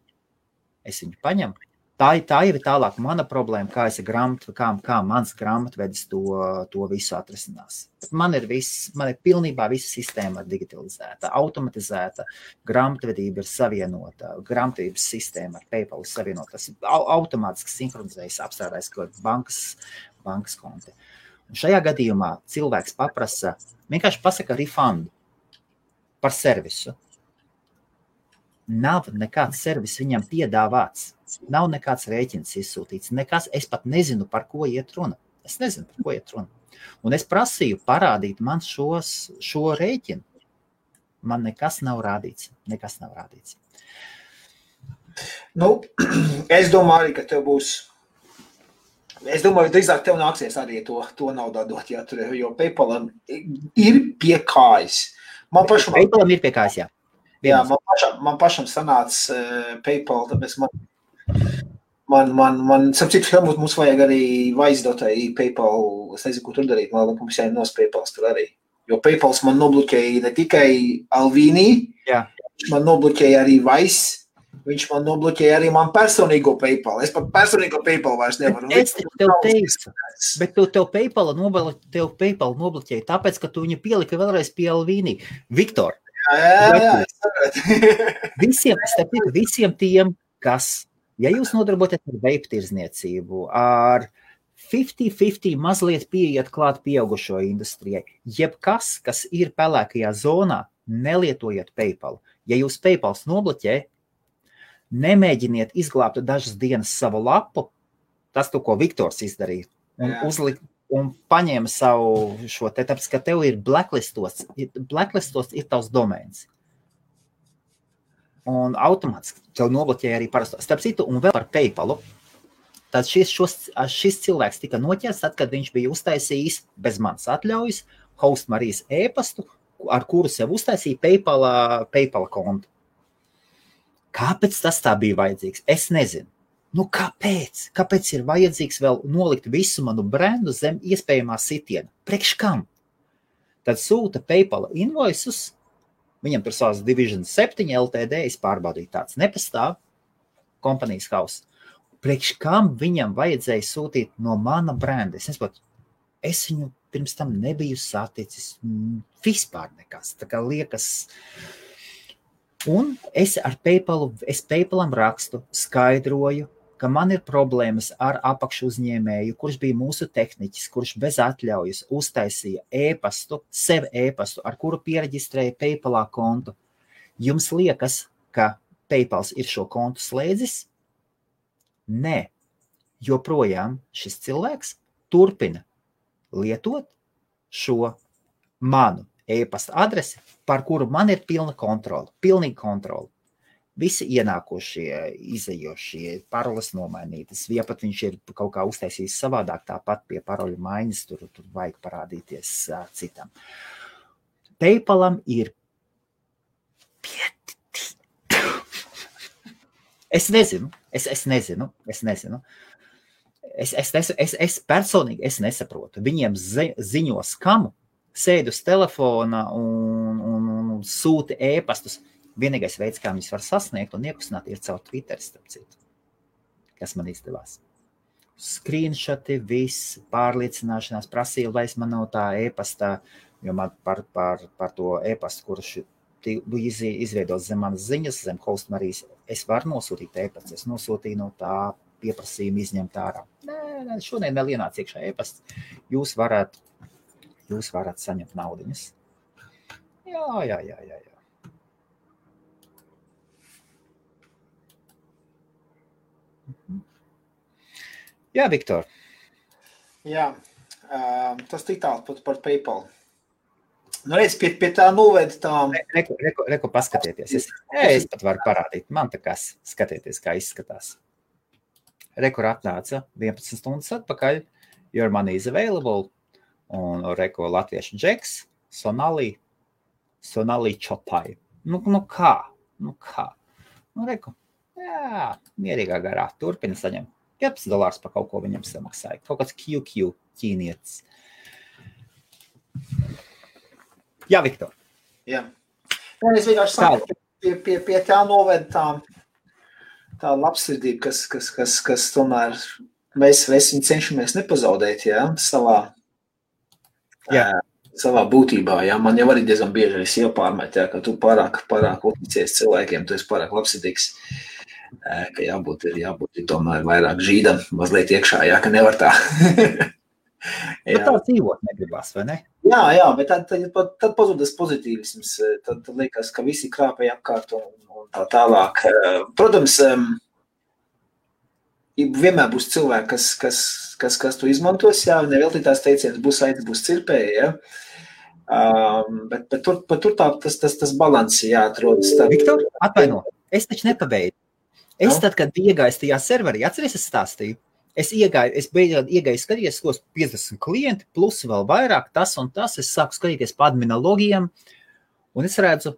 Tā jau ir tālāk mana problēma, kā mans grāmatvedis to visu atrisinās. Man ir pilnībā visa sistēma digitalizēta, automatizēta, grāmatvedība ir savienota, grāmatvedības sistēma ar PayPal ir savienota. Tas ir automātiski sinhronizējis, apstrādājis bankas konti. Un šajā gadījumā cilvēks vienkārši pasaka refundu par servisu. Nav nekāds servis viņam piedāvāts. Nav nekāds rēķins izsūtīts. Es pat nezinu, par ko iet runa. Un es prasīju parādīt man šo rēķinu. Man nekas nav rādīts. Es domāju arī, ka tev būs. Es domāju, drīzāk tev nāksies arī to naudu dot, jo PayPalam ir pie kājas. PayPalam ir pie kājas, jā. Jā, man pašam sanāca PayPal, tāpēc man sapcīt, Helmut, mums vajag arī vaizdotai PayPal, es nezinu, ko tur darīt, mums jānos PayPals tur arī. Jo PayPals man nobloķēja ne tikai Alvīnī, viņš man nobloķēja arī Vice, viņš man nobloķēja arī man personīgo PayPal. Es pat personīgo PayPal vairs nevaru. Es tev teicu, bet tev PayPal nobloķēja, tāpēc, ka tu viņu pielika vēlreiz pie Alvīnī. Viktor, Jā. Visiem tiem, kas, ja jūs nodarboties ar vape tirzniecību, ar 50-50 mazliet pieiet klāt pieaugušo industrijai, jebkas, kas ir pelēkajā zonā, nelietojiet PayPal. Ja jūs PayPals nobloķē, nemēģiniet izglābt dažas dienas savu lapu, tas to, ko Viktors izdarīja, un paņēma savu šo te, tāpēc, ka tev ir blacklistots ir tavs domēns. Un automātiski tev nobloķēja arī parasto. Starp citu, un vēl par PayPalu, tad šis cilvēks tika noķerts, tad, kad viņš bija uztaisījis bez manas atļaujas Host Marijas e-pastu, ar kuru sev uztaisīja PayPal kontu. Kāpēc tas tā bija vajadzīgs? Es nezinu. Nu, kāpēc? Kāpēc ir vajadzīgs vēl nolikt visu manu brendu zem iespējamā sitiena? Priekš kam? Tad sūta PayPal invoices, viņam tur savas Division 7 LTD, es pārbaudīju, tāds nepastāv, kompanijas house. Priekš kam viņam vajadzēja sūtīt no mana brenda? Es nesaprotu, es viņu pirms tam nebiju saticis vispār nekas. Tā kā liekas. Un es PayPalam rakstu, skaidroju, ka man ir problēmas ar apakšu uzņēmēju, kurš bija mūsu tehniķis, kurš bez atļaujas uztaisīja sev e-pastu, ar kuru piereģistrēja PayPalā kontu. Jums liekas, ka PayPals ir šo kontu slēdzis? Nē, joprojām šis cilvēks turpina lietot šo manu e-pasta adresi, par kuru man ir pilnīga kontrola. Visi ienākošie, izejošie, paroles nomainītas, ja pat viņš ir kaut kā uztaisījis savādāk, tāpat pie paroļu maiņas, tur vajag parādīties citam. PayPalam ir Es nezinu. Es personīgi nesaprotu. Viņiem ziņo skamu, sēd uz telefona un sūta e-pastus. Vienīgais veids, kā viņus var sasniegt un iekustināt, ir caur Twitter, starp citu, kas man izdevās. Screenshoti, viss, pārliecināšanās prasīja, lai es man nav tā e-pastā, jo man par to e-pastu, kurš izveidot zem manas ziņas, zem Host Marijas, es varu nosūtīt e-pastu. Es nosūtīju no tā pieprasījumu izņemt ārā. Nē, šodien vēl ienāc iekšā e-pasts. Jūs varat saņemt naudiņas. Jā. Jā, Viktor. Jā, tas tik tālu par PayPal. Nu, redz, pie tā noved tā... Reku paskatieties. Es pat varu parādīt. Man tā kā skatieties, kā izskatās. Reku atnāca 11 stundas atpakaļ. Your money is available. Un reku latviešu džeks. Sonali Chopai. Nu kā? Nu, reku. Jā, mierīgā garā. Turpina saņemt. $15 par kaut ko viņam samaksāja. Kaut kāds QQ ķīnietis. Jā, Viktor. Jā. Es vienkārši saku, pie tā noved tā labsirdība, kas tomēr mēs viņu cenšamies nepazaudēt, jā, savā būtībā, jā. Man jau arī diezgan bieži es iepārmet, jā, ka tu pārāk uzticies cilvēkiem, tu esi pārāk labsirdīgs, ka jābūt tomēr vairāk žīdam mazliet iekšā, jā, ka nevar tā. Bet tā dzīvot negribas, vai ne? Jā, bet tad pazūdas pozitīvisms, tad liekas, ka visi krāpēja apkārt un tā tālāk. Protams, vienmēr būs cilvēki, kas to izmantos, jā, neveltītās teicienas būs aitas, būs cirpēji, jā. Bet tur tas balanss jāatrodas. Viktor, atvaino, es taču nepabeidzu. Tad, kad iegāju tajā serverī, atceries, es stāstīju? Es iegāju skatīties, ko 50 klienti, plus vēl vairāk, tas un tas. Es sāku skatīties pa admina logiem, un es redzu,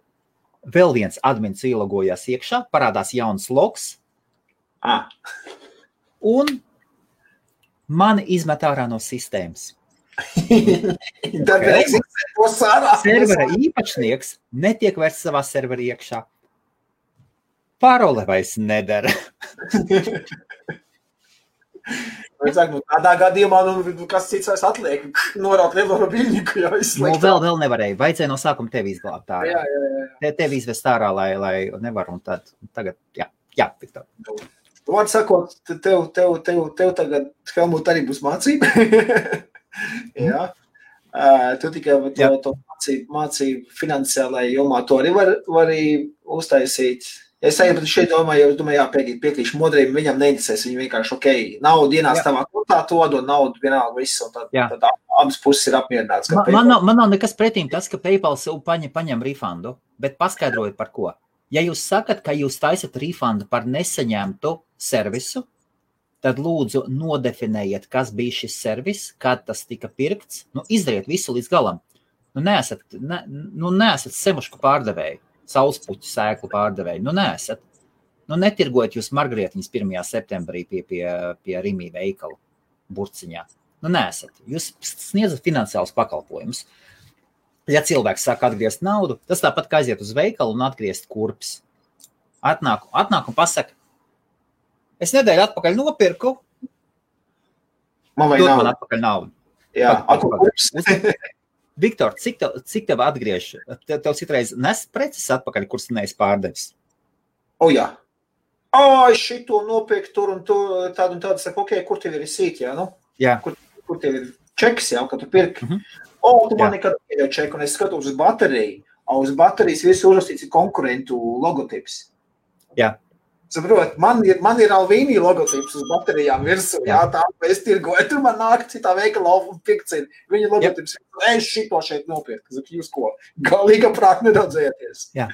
vēl viens admins ielogojās iekšā, parādās jauns logs, un mani izmet ārā no sistēmas. Servera īpašnieks netiek vairs savā servera iekšā. Parole vairs nedara. Tādā gadījumā, kas cits vairs atliek, norāt lielo biļņiku jau izslēgt. Vēl nevarēja, vajadzēja no sākuma tevi izglābt ārā. Jā. Tevi izvest ārā, lai nevar, un tagad, jā, Viktor. Vārds sakot, tev tagad, Helmut, arī būs mācība. Jā. Tu tikai to mācību finansiālajā jomā, to arī var uztaisīt. Es šeit domāju, piekrīšu modrību, viņam neinteresēs, viņi vienkārši, naudu ienāc tavā kontā, to dod naudu vienalga viss, un tad abas puses ir apmierināts. Man nav nekas pretīm tas, ka PayPal paņem refundu, bet paskaidrojiet par ko. Ja jūs sakat, ka jūs taisat refundu par nesaņemtu servisu, tad lūdzu nodefinējiet, kas bija šis servis, kad tas tika pirkts, izdariet visu līdz galam. Neesat semušku pārdevēju. Saulespuķu sēklu pārdevēju. Neesat. netirgojat jūs margrietiņas 1. septembrī pie Rimī veikala burciņā. Neesat. Jūs sniedzat finansiālus pakalpojumus. Ja cilvēks sāk atgriezt naudu, tas tāpat kā aiziet uz veikalu un atgriezt kurpes. Atnāk un pasaka, es nedēļu atpakaļ nopirku, man atpakaļ naudu. Jā, kurpes. Viktor, cik tev atgriež? Tev citreiz nes preces atpakaļ, kuras neesi pārdevis? Jā. Es šito nopirku tur un tādu un tādu, saku, kur tev ir sīt, jā, nu? Jā. Kur tev ir čeks, jā, kad tu pirki? Tu man nekad pieļauj čeku, un es skatos uz bateriju, uz baterijas visu uzrakstīts ir konkurentu logotips. Jā. Saprot, man ir Alvīnī logotips uz baterijām virsū, jā, tā, es tirgoju, tur man nāk citā veikala un pirkcina. Viņa logotips, es šito šeit nopirku, jūs ko, galīga prāt neraudzēties. Jā,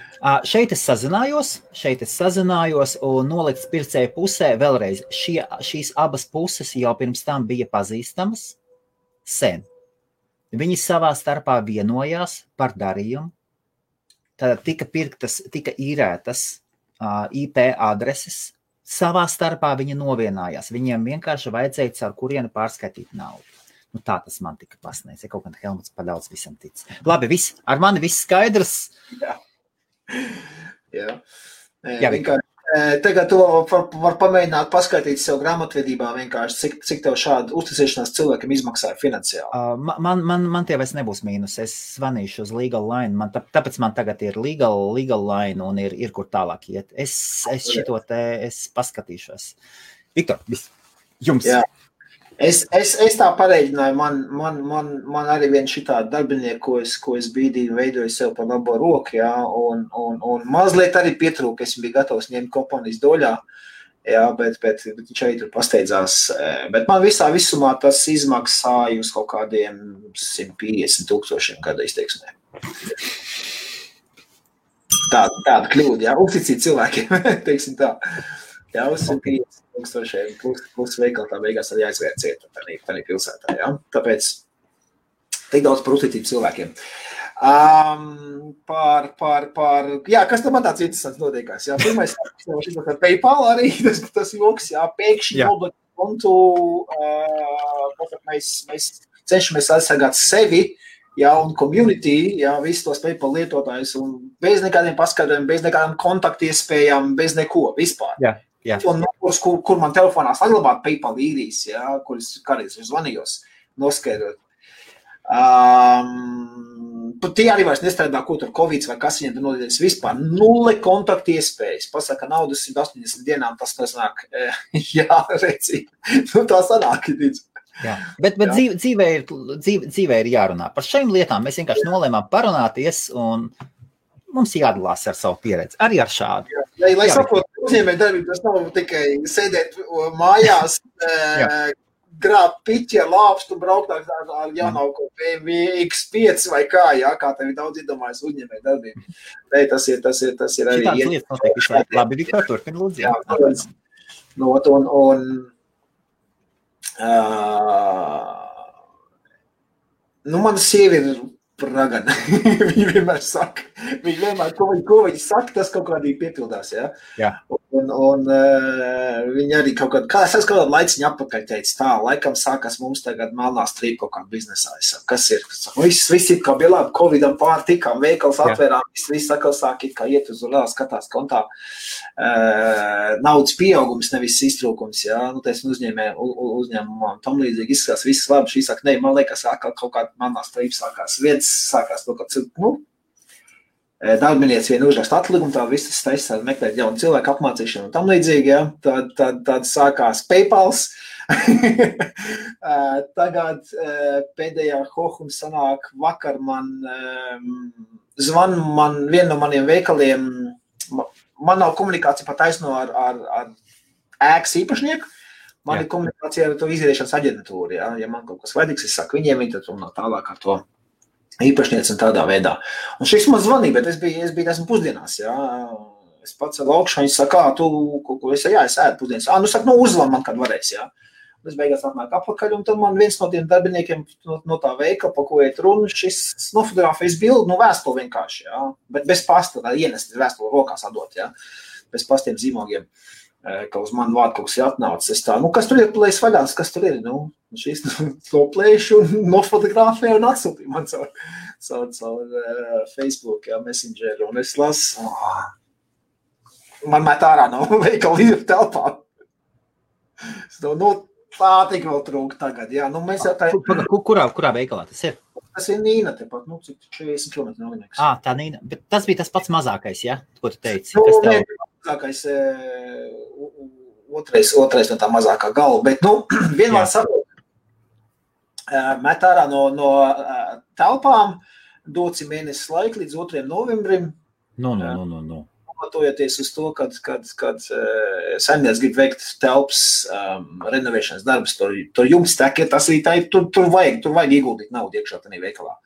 šeit es sazinājos un nolikts pircēju pusē vēlreiz. Šīs abas puses jau pirms tam bija pazīstamas sen. Viņi savā starpā vienojās par darījumu, tad tika īrētas IP adreses, savā starpā viņi novienājās. Viņiem vienkārši vajadzēja caur kurienu pārskaitīt naudu. Tā tas man tika pasniedz, ja kaut kādā Helmuts padaudz visam tic. Labi, ar mani viss skaidrs. Jā. Vienkārši. Tagad to var pamēģināt paskaitīt sev grāmatvedībā vienkārši, cik tev šāda uzticēšanās cilvēkam izmaksāja finansiāli. Man tie vairs nebūs mīnus. Es zvanīšu uz Legal Line. Tāpēc man tagad ir Legal Line un ir kur tālāk iet. Es šito te, es paskatīšos. Viktor, jums. Jā. Es tā pareiģināju, man arī viens šitā darbinieku, ko es brīdī veidoju sev par labo roku, jā, un mazliet arī pietrūka, es biju gatavs ņemt kompānijas doļā, jā, bet viņš arī tur pasteidzās, bet man visumā tas izmaksāja uz kaut kādiem 150,000 gada izteiksmē. Tāda kļūda, jā, uzticīt cilvēkiem, teiksim tā. Jā, uz 150,000 plus veikali tā beigās arī aizvērt cieta tādā pilsētā, jā. Tāpēc tik daudz par uzticību cilvēkiem. Jā, kas tam man tāds interesants notiekās, jā. Pirmais, ar PayPal arī, tas joks, jā, pēkšņi obligāti kontu, mēs cenšamies aizsargāt sevi, jā, un community, jā, visus tos PayPal lietotājus, un bez nekādiem paskaidrojumiem, bez nekādām kontaktiespējām, bez neko, vispār. Jā. Un numurs, kur man telefonā saglabāt PayPal īrijas, jā, kuras kādreiz zvanījos, noskaidrot. Tie arī vairs nestrādā, ko tur Covid vai kas viņiem tur nodēļas vispār. 0 kontaktu iespējas. Pasaka, naudas 180 dienām tas sanāk. Jā, redzi. Tā sanāk. Jā, bet dzīvē ir jārunā. Par šīm lietām mēs vienkārši nolēmām parunāties un mums jādalās ar savu pieredzi. Arī ar šādu. Jā, lai saprotu, uzņēmēju darbību, tas nav tikai sēdēt mājās, grābt piķi ar lāpstu, braukt ar jaunāko BMW X5 vai kā tev ir daudz iedomājas uzņēmēju darbību. Tas ir arī... Šitādas lietas notiek visu laiku. Labi, Viktor, turpin, lūdzu. Mana sieva ir ragana. Viņa vienmēr saka. Ko viņa saka, tas kaut kādī piepildās, jā? Jā. Un viņa arī kaut kādā laiciņa atpakaļ teica tā, laikam sākās mums tagad melnā strīpa kaut kā biznesā. Kas ir? Viss ir kā bija labi, Covidam pārtikām, veikals atvērām, viss atkal sāk it kā iet uz urā, skatās kontā. Naudas pieaugums, nevis iztrūkums, jā? Uzņēmumā tam līdzīgi izskatās, viss labi, šī saka, ne, man liekas, kaut kāda melnā strīpa sākās. Viens sākās to, ka darbinieci vien uzraksta atlikumu, tā viss taisās meklēt jaunu cilvēku apmācīšanu un tam līdzīgi, ja? Tad sākās PayPals. Tagad pēdējā hohum sanāk vakar zvan vienu no maniem veikaliem, man nav komunikācija pat taisno ar ēkas īpašnieku, man ir komunikācija ar to izieriešanas aģentūru, ja man kaut kas vajadīgs, es saku viņiem, viņi tad runā tālāk ar to īpašnieci un tādā veidā. Un šis man zvanīja, bet es biju esmu pusdienās, jā. Es pats ar augšu, viņi saka, es ēdu pusdienas. Saka, uzvan man, kad varēs, jā. Un es beigās atnāk apakaļ, un tad man viens no tiem darbiniekiem no tā veikala, pa ko iet runa, šis nofotografējas bildi, vēstuli vienkārši, jā. Bet bez pasta, tā ienest vēstuli rokās atdot, jā. bez pastiem zīmogiem, ka uz manu vārdu kaut kas ir atnācis. Es tā, kas tur ir plējas vaļās, kas tur ir? Šis to plēšu un nofotografēju un atsūtīju man caur Facebook, Messengeru, un es lasu, man met ārā no veikala ir telpā. Tā tik vēl trūk tagad, jā. Mēs jau tā... Kurā veikalā tas ir? Tas ir Nīna tepat, cik 40 km no Lineks. Tā Nīna, bet tas bija tas pats mazākais, ja? Ko tu teici? Mazākais, otrais no tā mazākā galva, bet, vienmēr saprot, met ārā no telpām, doci mēnesis laika līdz 2. novembrim. Pamatojoties uz to, kad saimnieks grib veikt telpas renovēšanas darbus, tur jums tek, tas arī tur vajag ieguldīt naudu iekšā tādā veikalā.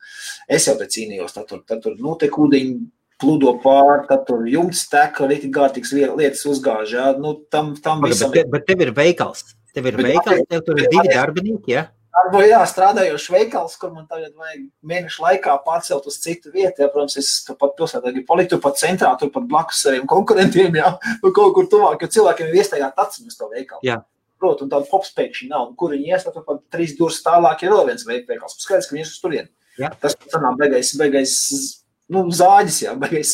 Es jau te cīnījos, tad tur notiek ūdeņi, pludo pār, tad tur jums tek, rīti gārtīgs lietas uzgāž, jā, tam visam... Bet tev ir veikals, tev tur ir 2 darbinieki, ja? Strādājošs veikals, kur man tagad vajag mēnešu laikā pārcelt uz citu vietu. Protams, es turpat pilsētā gribu palikt, turpat centrā, turpat blakus saviem konkurentiem, kaut kur tuvāk, jo cilvēkiem ir iestaigāt aciņus to veikalu. Jā. Protams, un tādu popspēkšņi nav, un kur viņi ies, tad turpat 3 durus tālāk ir vēl viens veikals. Skaidrs, ka viņi ies uz turieni. Tas sanāk beigais zāģis, beigais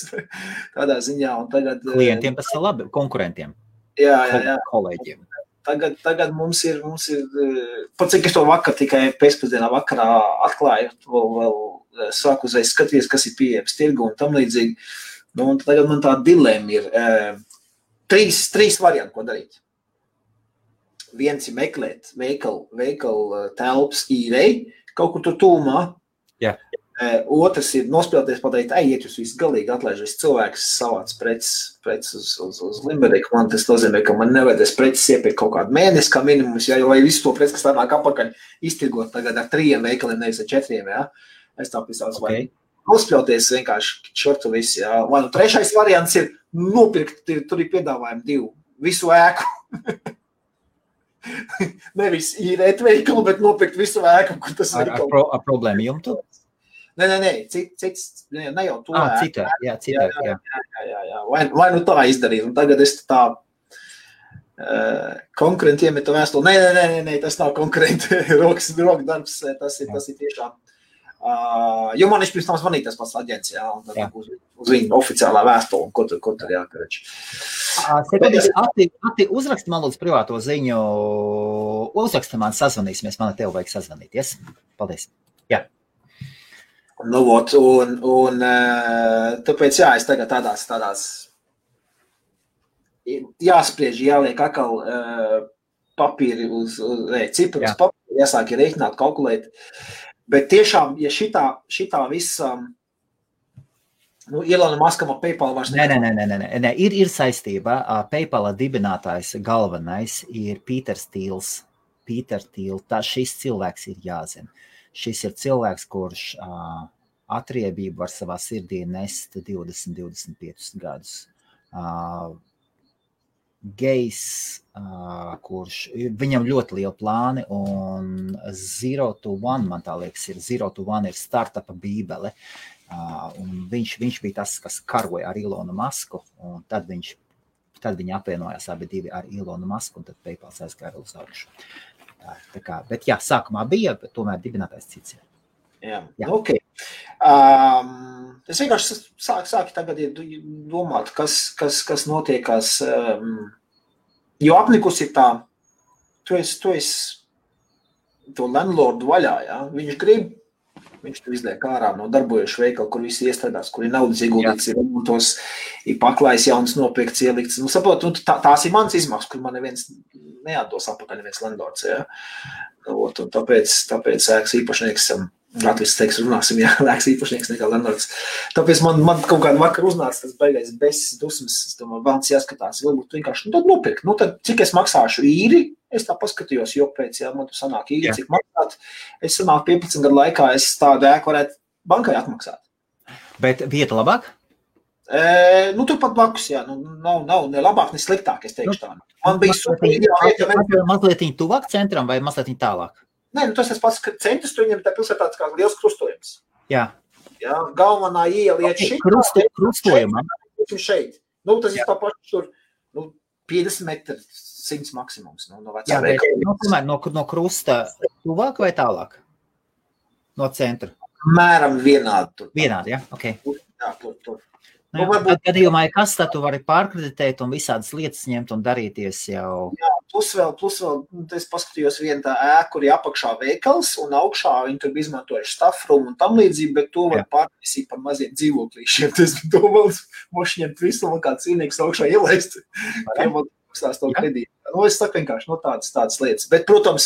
tādā ziņā. Un tagad, klientiem tas ir labi, konkurentiem. Jā. Kolēģiem. Tagad mums ir pat cik es to tikai pēcpusdienā vakarā atklāju, vēl sāku uzreiz skatīties, kas ir pieejams tirgu un tam līdzīgi. Un tagad man tā dilēma ir 3 varianti, ko darīt. Viens ir meklēt veikalu telpas īrei, kaut kur tur tūmā. Jā. Otrs ir nospēlēties pateikt, iet jūs visu galīgi atlaiž, viss cilvēks savāc preces uz Limeriku. Man tas nozīmē, ka man nevajadzēs preces iepirkt kaut kādu mēnesi kā minimums, vai visu to preces, kas tā nāk apakaļ, iztirgot tagad ar 3 veikaliem, nevis ar 4, jā. Es tā pisāts, vai nospēlēties vienkārši šortu visi, jā. Vai 3. variants ir nopirkt, tur ir piedāvājumi 2, visu ēku. Nevis īrēt veikalu, bet nopirkt visu ēku, kur tas ir. Ar problēmu jumtu? Nē, cits, ne jau to citā. Vai tā izdarīt, un tagad es tā konkurentiem ir to vēstuli. Nē, tas nav konkurenti, rokas darbs, tas ir tiešām. Jo man pirms tam zvanīja tas pats aģents, un tad uz viņu oficiālā vēstuli, ko tur jākarač. Ati, uzraksti man lūdzu privāto ziņu, uzraksti man sazvanīsimies, man ar tevi vajag sazvanīties. Paldies. Jā. Un tāpēc, es tagad tādās jāspriež, jāliek atkal papīri uz cipru, uz papīri, jāsāk rēķināt, kalkulēt. Bet tiešām, ja šitā visa, Ilona Maskam ar PayPal vairs Nē, ir saistība. PayPal dibinātājs galvenais ir Pīters Tīls. Šis cilvēks ir jāzina. Šis ir cilvēks, kurš atriebību var savā sirdī nest 20-25 gadus. Gejs, kurš viņam ļoti liela plāni, un 0 to 1, man tā liekas, 0 to 1 ir startupa bībele. Un viņš bija tas, kas karoja ar Ilonu Masku, un tad viņi apvienojās abi divi ar Ilonu Masku, un tad PayPal aizgāja uz augšu. Bet sākumā bija, bet tomēr dibinātājs cits ir. Jā. Ok. Es vienkārši sāku tagad domāt, kas notiekās, jo apnikus ir tā, tu esi to landlordu vaļā, jā, viņš tu izliek ārā no darbojušu veikalu, kur visi iestrādās, kur ir naudas ieguldīts, ir remontos, ir paklājs jauns nopirkts, ielikts. Saprot, tās ir mans izmaksas, kur man neviens neatdos apakaļ, neviens landlords, jā. Un tāpēc ēkas īpašnieks, Latvijas teiks, runāsim, ēkas īpašnieks nekā landlords. Tāpēc man kaut kādu vakaru uznāca tas beigais besis dusmas, es domāju, vēlams jāskatās, varbūt vienkārši, tad nopirkt. Tad cik es maksāšu īri, es tā paskatījos, jo pēc, man tu sanāk īri, cik maksāt, es sanāk 15 gadu laikā, es tādu ēku varētu bankai atmaksāt. Bet vieta labāk? Turpat blakus, nav ne labāk, ne sliktāk, es teikšu tā. Man bija super ideāli. Mazliet tuvāk centram vai mazliet tālāk? Nē, tas pats centrs, tu viņam tā pilsētā tāds kā liels krustojums. Jā. Galvenā iela iet šeit. Krustojumā. Šeit. Nu, tas ir tā paši tur, 50 metri, 100 maksimums. No Jā, bet no krusta tuvāk vai tālāk? No centra? Mēram vienādi tur. Vienādi, jā? Ok. Jā, tur. Nu, tad gadījumā, kas tad tu vari pārkreditēt un visādas lietas ņemt un darīties jau? Jā, plus vēl, es paskatījos vienu tā ēku, kur ir apakšā veikals un augšā viņi tur izmantojuši staff room un tam līdzīgi, bet to var pārnesīt par maziem dzīvoklīšiem. Tas to vēl mošņemt visu un kā cīnīgs augšā ielaist. Tiem vēl maksās to kredītu. Nu, es saku vienkārši, tādas lietas. Bet, protams,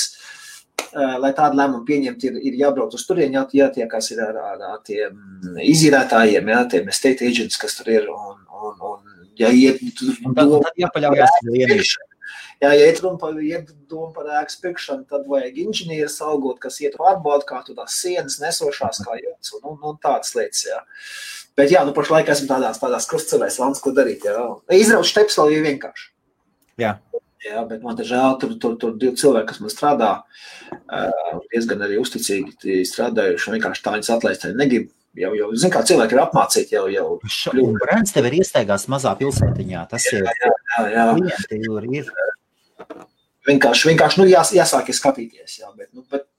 lai tādu lēmumu pieņemt, ir jābrauc uz turien, jātiekās ir ar tiem izīrētājiem, tiem estate agents, kas tur ir, un jāiet... Un tad jāpaļaujās vienīši. Jā, ja iet doma par ēkas pirkšanu, tad vajag inženieris algot, kas iet pārbaudu, kā tu tās sienas nesošās, kā jūtas, un tādas lietas, jā. Bet jā, pašlaik esmu tādās krustcelēs, valns, ko darīt, jā. Izrauc šteps vēl ir vienkārši. Jā. Jā, bet man te žēl, tur 2 cilvēki, kas man strādā, diezgan arī uzticīgi strādājuši, vienkārši tā viņas atlaist arī negrib. Jau, zin kā, cilvēki ir apmācīti jau. Un brands tev ir iestaigās mazā pilsētiņā, tas ir. Jā. Klienti ir. Vienkārši jāsāk skatīties, jā, bet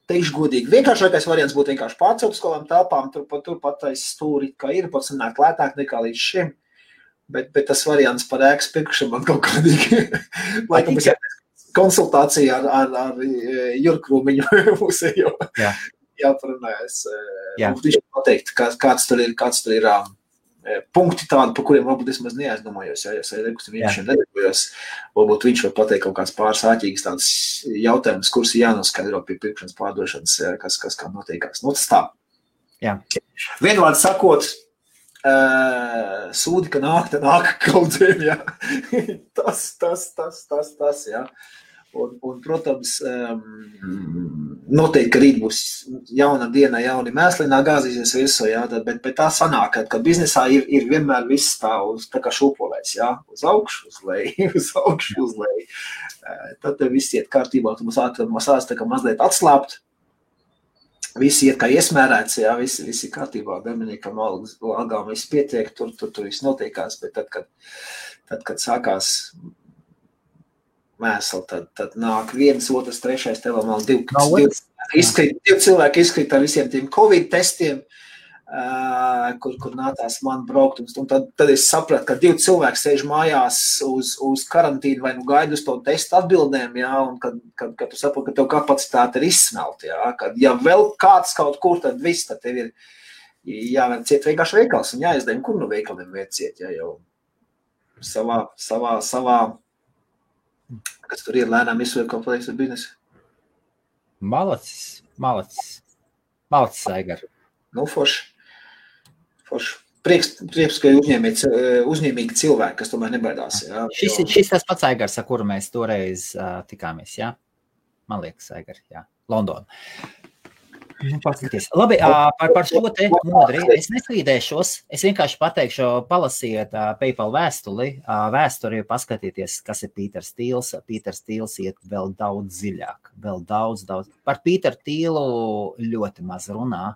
teikšu godīgi, vienkāršākais variants būtu vienkārši pārcelt uz kādām telpām, tur pat aiz stūri, kā ir, pats sanāk lētāk nekā līdz šim. Bet tas variants par ēkas pirkšanu man kaut kādīgi, laikam es konsultācija ar Jurkrūmiņu mūsējo jāparunājas. Viņš pateikt, kāds tur ir punkti tādi, par kuriem varbūt es maz neaizdomājos, ja es nekustamīšiem nedarbojos, varbūt viņš var pateikt kaut kāds pāris āķīgas tādas jautājumas, kurus jānoskaidro pie pirkšanas pārdošanas, kas kā notiekās. Nu, tas tā. Jā. Vienvārds sakot, sūdi, ka nāk kaudzēm, jā. Tas, jā. Un protams, noteikti, ka rīt būs jauna diena, jauni mēslīnā gāzīsies virsū, jā, bet tā sanāk, ka biznesā ir vienmēr viss tā kā šūpolēs, jā, uz augšu, uz leju, uz augšu, uz leju. Tad viss iet kārtībā, tu mums sāc tā kā mazliet atslāpt. Visi iet kā iesmērēts, jā, visi kārtībā, Dominikam algām viss pietiek, tur viss notiekās, bet tad, kad sākās mēsli, tad nāk 1, 2, 3, tev vēl 2 cilvēki izkrīt ar visiem tiem Covid testiem, kur nācās man braukt, un tad es sapratu, ka 2 cilvēki sēž mājās uz karantīnu vai gaida uz to testu atbildēm, jā, un kad tu saproti, ka tev kapacitāte ir izsmelta, jā, kad ja vēl kāds kaut kur, tad viss, tad tev ir jāvēr ciet vienkārši veikals un jāizdēm, kur no veikaliem vēr ciet, jā, jau savā, kas tur ir lēnām izsver kaut pateiks ar biznesu. Malacis, Aigar. Nu, forši. Prieks, ka ir uzņēmīgi cilvēki, kas tomēr nebaidās. Jā, šis tas pats Aigars, ar kuru mēs toreiz tikāmies, jā? Man liekas, Aigar, jā. Londona. Paskaties. Labi, par šo te modri. Es nestrīdēšos, es vienkārši pateikšu, palasiet PayPal vēsturi, paskatieties, kas ir Pīters Tīls. Pīters Tīls iet vēl daudz dziļāk, vēl daudz. Par Pīteru Tīlu ļoti maz runā.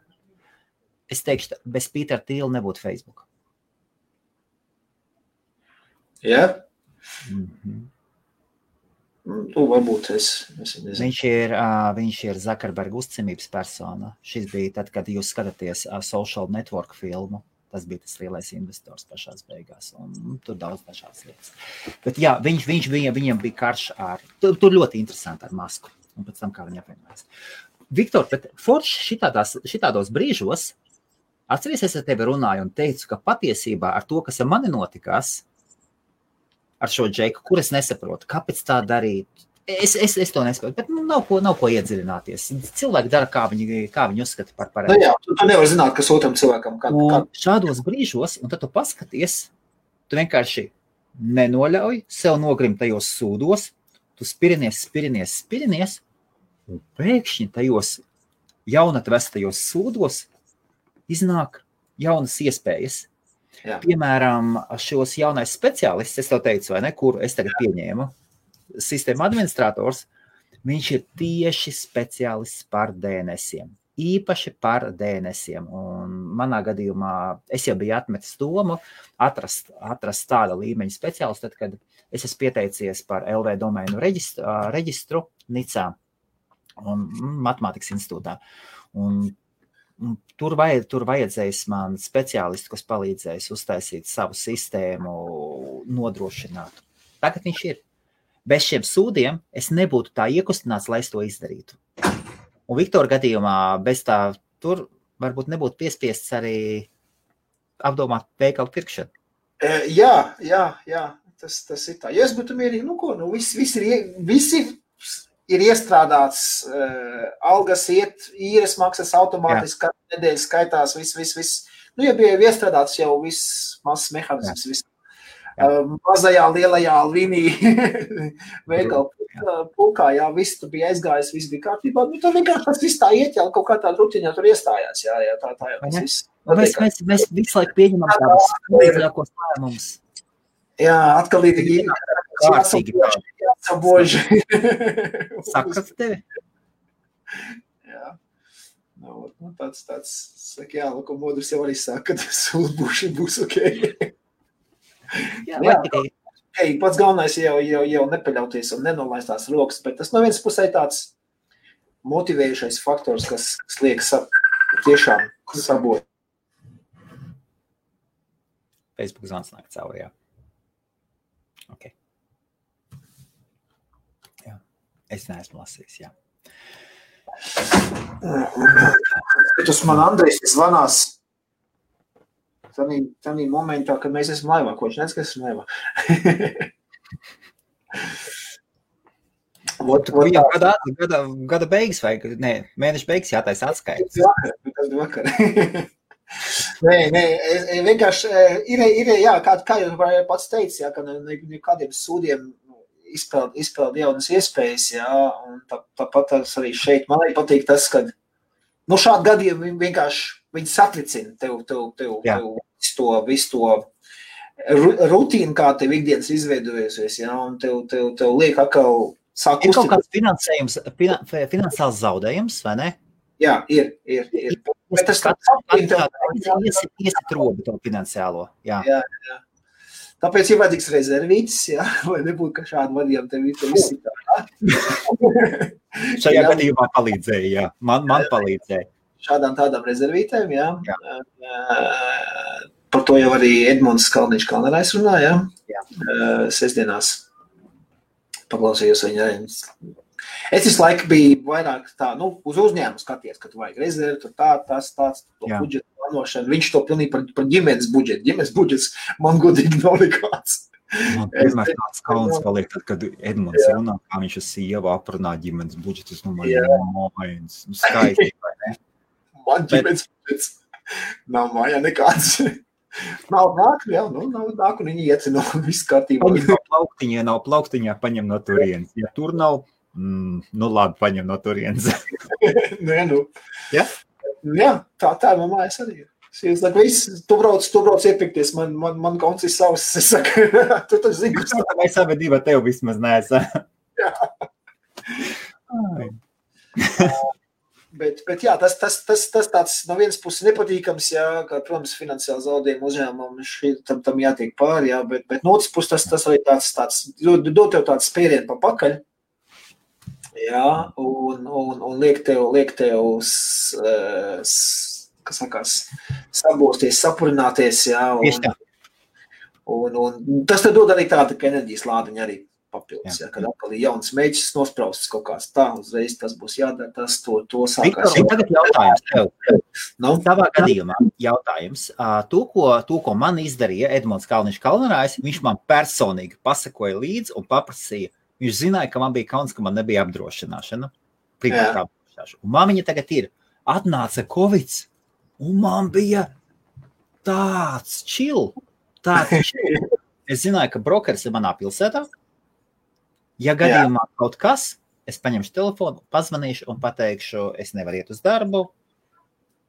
Es teikšu, bez Pītera Tīla nebūtu Facebook. Jā? Tu varbūt es nezinu. Viņš ir Zuckerberga uzticamības persona. Šis bija tad, kad jūs skatāties Social Network filmu. Tas bija tas lielais investors pašās beigās. Un tur daudz dažādas lietas. Bet jā, viņam bija karš ar... Tur ļoti interesanti ar Masku. Un pēc tam, kā viņi apvienojās. Viktor, bet forši šitādos brīžos atceries, es ar tevi runāju un teicu, ka patiesībā ar to, kas ar mani notikās, ar šo Džeku, kur es nesaprotu, kāpēc tā darīt, es to nesaprotu, bet nav ko iedziļināties. Cilvēki dara, kā viņi uzskata par pareizi. Nu jā, tu nevar zināt, kas otram cilvēkam. Un šādos brīžos, un tad tu paskaties, tu vienkārši nenoļauj sev nogrimt tajos sūdos, tu spirinies, un pēkšņi tajos jaunatvestajos sūdos iznāk jaunas iespējas. Jā. Piemēram, šos jaunais speciālists, es tev teicu, vai ne, kuru es tagad pieņēmu, sistēma administrators, viņš ir tieši speciālists par DNS-iem. īpaši par DNS-iem. Un manā gadījumā es jau biju atmetis domu atrast tāda līmeņa speciālistu, tad, kad es esmu pieteicies par LV domēnu reģistru Nicā un Matemātikas institūtā. Un tur vajadzēs man speciālistu, kas palīdzēs uztaisīt savu sistēmu, nodrošināt. Tagad viņš ir. Bez šiem sūdiem es nebūtu tā iekustināts, lai es to izdarītu. Un Viktora gadījumā bez tā tur varbūt nebūtu piespiests arī apdomāt veikalu pirkšanu. Jā, tas ir tā. Ja es būtu mierīgi, visi ir iestrādāts, algas iet, īres maksas automātiski, katru nedēļu skaitās, viss. Ja bija iestrādāts jau viss mazs mehānisms, viss. Mazajā, lielajā līnija veikalu pulkā, jā, viss tur bija aizgājis, viss bija kārtībā. Tur vienkārši tas viss tā iet, kaut kā tā rutiņā tur iestājās, jā, tā jau tas viss. Mēs visu laiku pieņemam tādus līdzākos lēmumus. Jā, atkal ir kārtīgi. Jāsaboži. Sakat tevi? Jā. Tāds, saka, jā, ko modrs jau arī saka, ka sūdbuši būs ok. Jā, pats galvenais jau nepaļauties un nenolaistās rokas, bet tas no vienas pusē tāds motivējušais faktors, kas liek tiešām sabot. Facebook zvans nāk cauri, jā. Ok. Jā. Es neesmu lasījis, jā. Tas man Andrejs zvanās tādā momentā, kad mēs esam laivā, ko viņš nezinu, kas esam laivā. Gada beigas vai mēneša beigas jātais atskaits. Vakar. Nē, vienkārši ir jā, kā jau pats teici, jā, ka nekādiem sūdiem izpeld jaunas iespējas, jā, un tāpat arī šeit. Man arī patīk tas, ka šādi gadiem vienkārši viņi satricina tev visu to rutīnu, kā tev ikdienas izveidojusies, jā, un tev liek atkal sāk uzticēt. Ir kaut kāds finansējums, finansiāls zaudējums, vai ne? Jā, ir. Bet tas iesit robu to finansiālo, jā. Jā. Tāpēc ir vajadzīgs rezervītis, jā, lai nebūtu, ka šādi vadījām tev visi tā. Šajā gadījumā palīdzēja, jā. Man palīdzēja. Šādām tādām rezervītēm, jā. Par to jau arī Edmunds Kalniņš-Kalnerais runā, jā. Sestdienās paklausījos viņa. Es visu laiku biju vairāk tā, uz uzņēmumu skaties, ka tu vajag rezervi, tur tāds, to budžetu plānošanu. Viņš to pilnīgi par ģimenes budžetu. Ģimenes budžets man godīgi nav nekāds. Man vienmēr tāds kauns paliek, tad, kad Edmunds runā, kā viņš ar sievu aprunā ģimenes budžetus, mājas, skaisti, vai ne? Man ģimenes budžets nav mājā nekāds. Nav nāk, jā, nav nāk, un viņi iecina visu kārtībā. Paņem nav plauktiņā, paņem no turienes. Ja tur nav, labi, paņem no turienes. Nē, Ja? Jā, tā man mājas arī ir. Es saku, tu brauc iepirkties, man kauns ir savs. Es saku, tu taču zini, kas tā. Vai savedība tev vismaz neesā. Jā. Bet jā, tas tāds no vienas puses nepatīkams, jā, kā, protams, finansiāli zaudējumi uzņēmumam tam jātiek pāri, jā, bet no otras puses tas arī tāds dod tev tāds spērienu pa pakaļ, jā, un liek tev kas sakās, sabosties, sapurināties, jā, un tas te dod arī tāda, ka enerģijas lādiņa arī papildus, jā, kad atkal ir jauns mēģis nospraustas kaut kāds tā, uzreiz tas būs jādara, tas to sākās. Viktor, tagad jautājums tev. Tavā gadījumā jautājums. To, ko man izdarīja Edmunds Kalniņš-Kalnerais, viņš man personīgi pasakoja līdzi un paprasīja. Viņš zināja, ka man bija kauns, ka man nebija apdrošināšana. Privātā apdrošināšana. Un man viņa tagad ir. Atnāca Covid, un man bija tāds chill. Es zināju, ka brokeris ir manā pilsētā. Ja gadījumā kaut kas, es paņemšu telefonu, pazvanīšu un pateikšu, es nevaru iet uz darbu,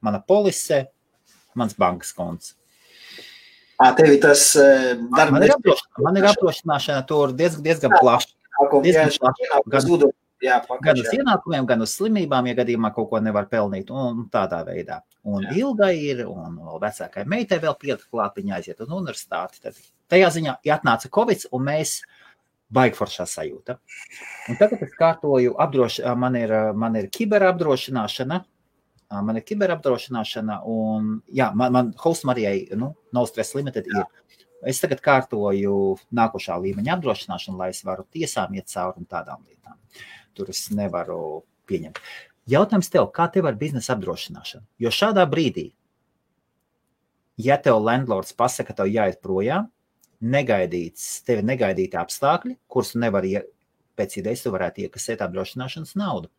mana polise, mans bankas konts. Tev ir tas Man ir apdrošināšana tur diezgan plaši. Gan uz ienākumiem, gan uz slimībām, ja gadījumā kaut ko nevar pelnīt, un tādā veidā. Un Ilgai ir, un vecākai meitai vēl pielika klāt, viņa aiziet uz universitāti. Tad tajā ziņā atnāca Covid, un mēs baigi foršā sajūta. Un tagad es kārtoju, man ir kiberapdrošināšana, un man Host Marijai, No Stress Limited ir. Es tagad kārtoju nākošā līmeņa apdrošināšanu, lai es varu tiesām iet cauri un tādām lietām. Tur es nevaru pieņemt. Jautājums tev, kā tev ar biznesa apdrošināšanu? Jo šādā brīdī, ja tev landlords pasaka, ka tev jāiet projām, tevi negaidīti apstākļi, kurus nevar pēc idejas tu varētu iekasēt apdrošināšanas naudu.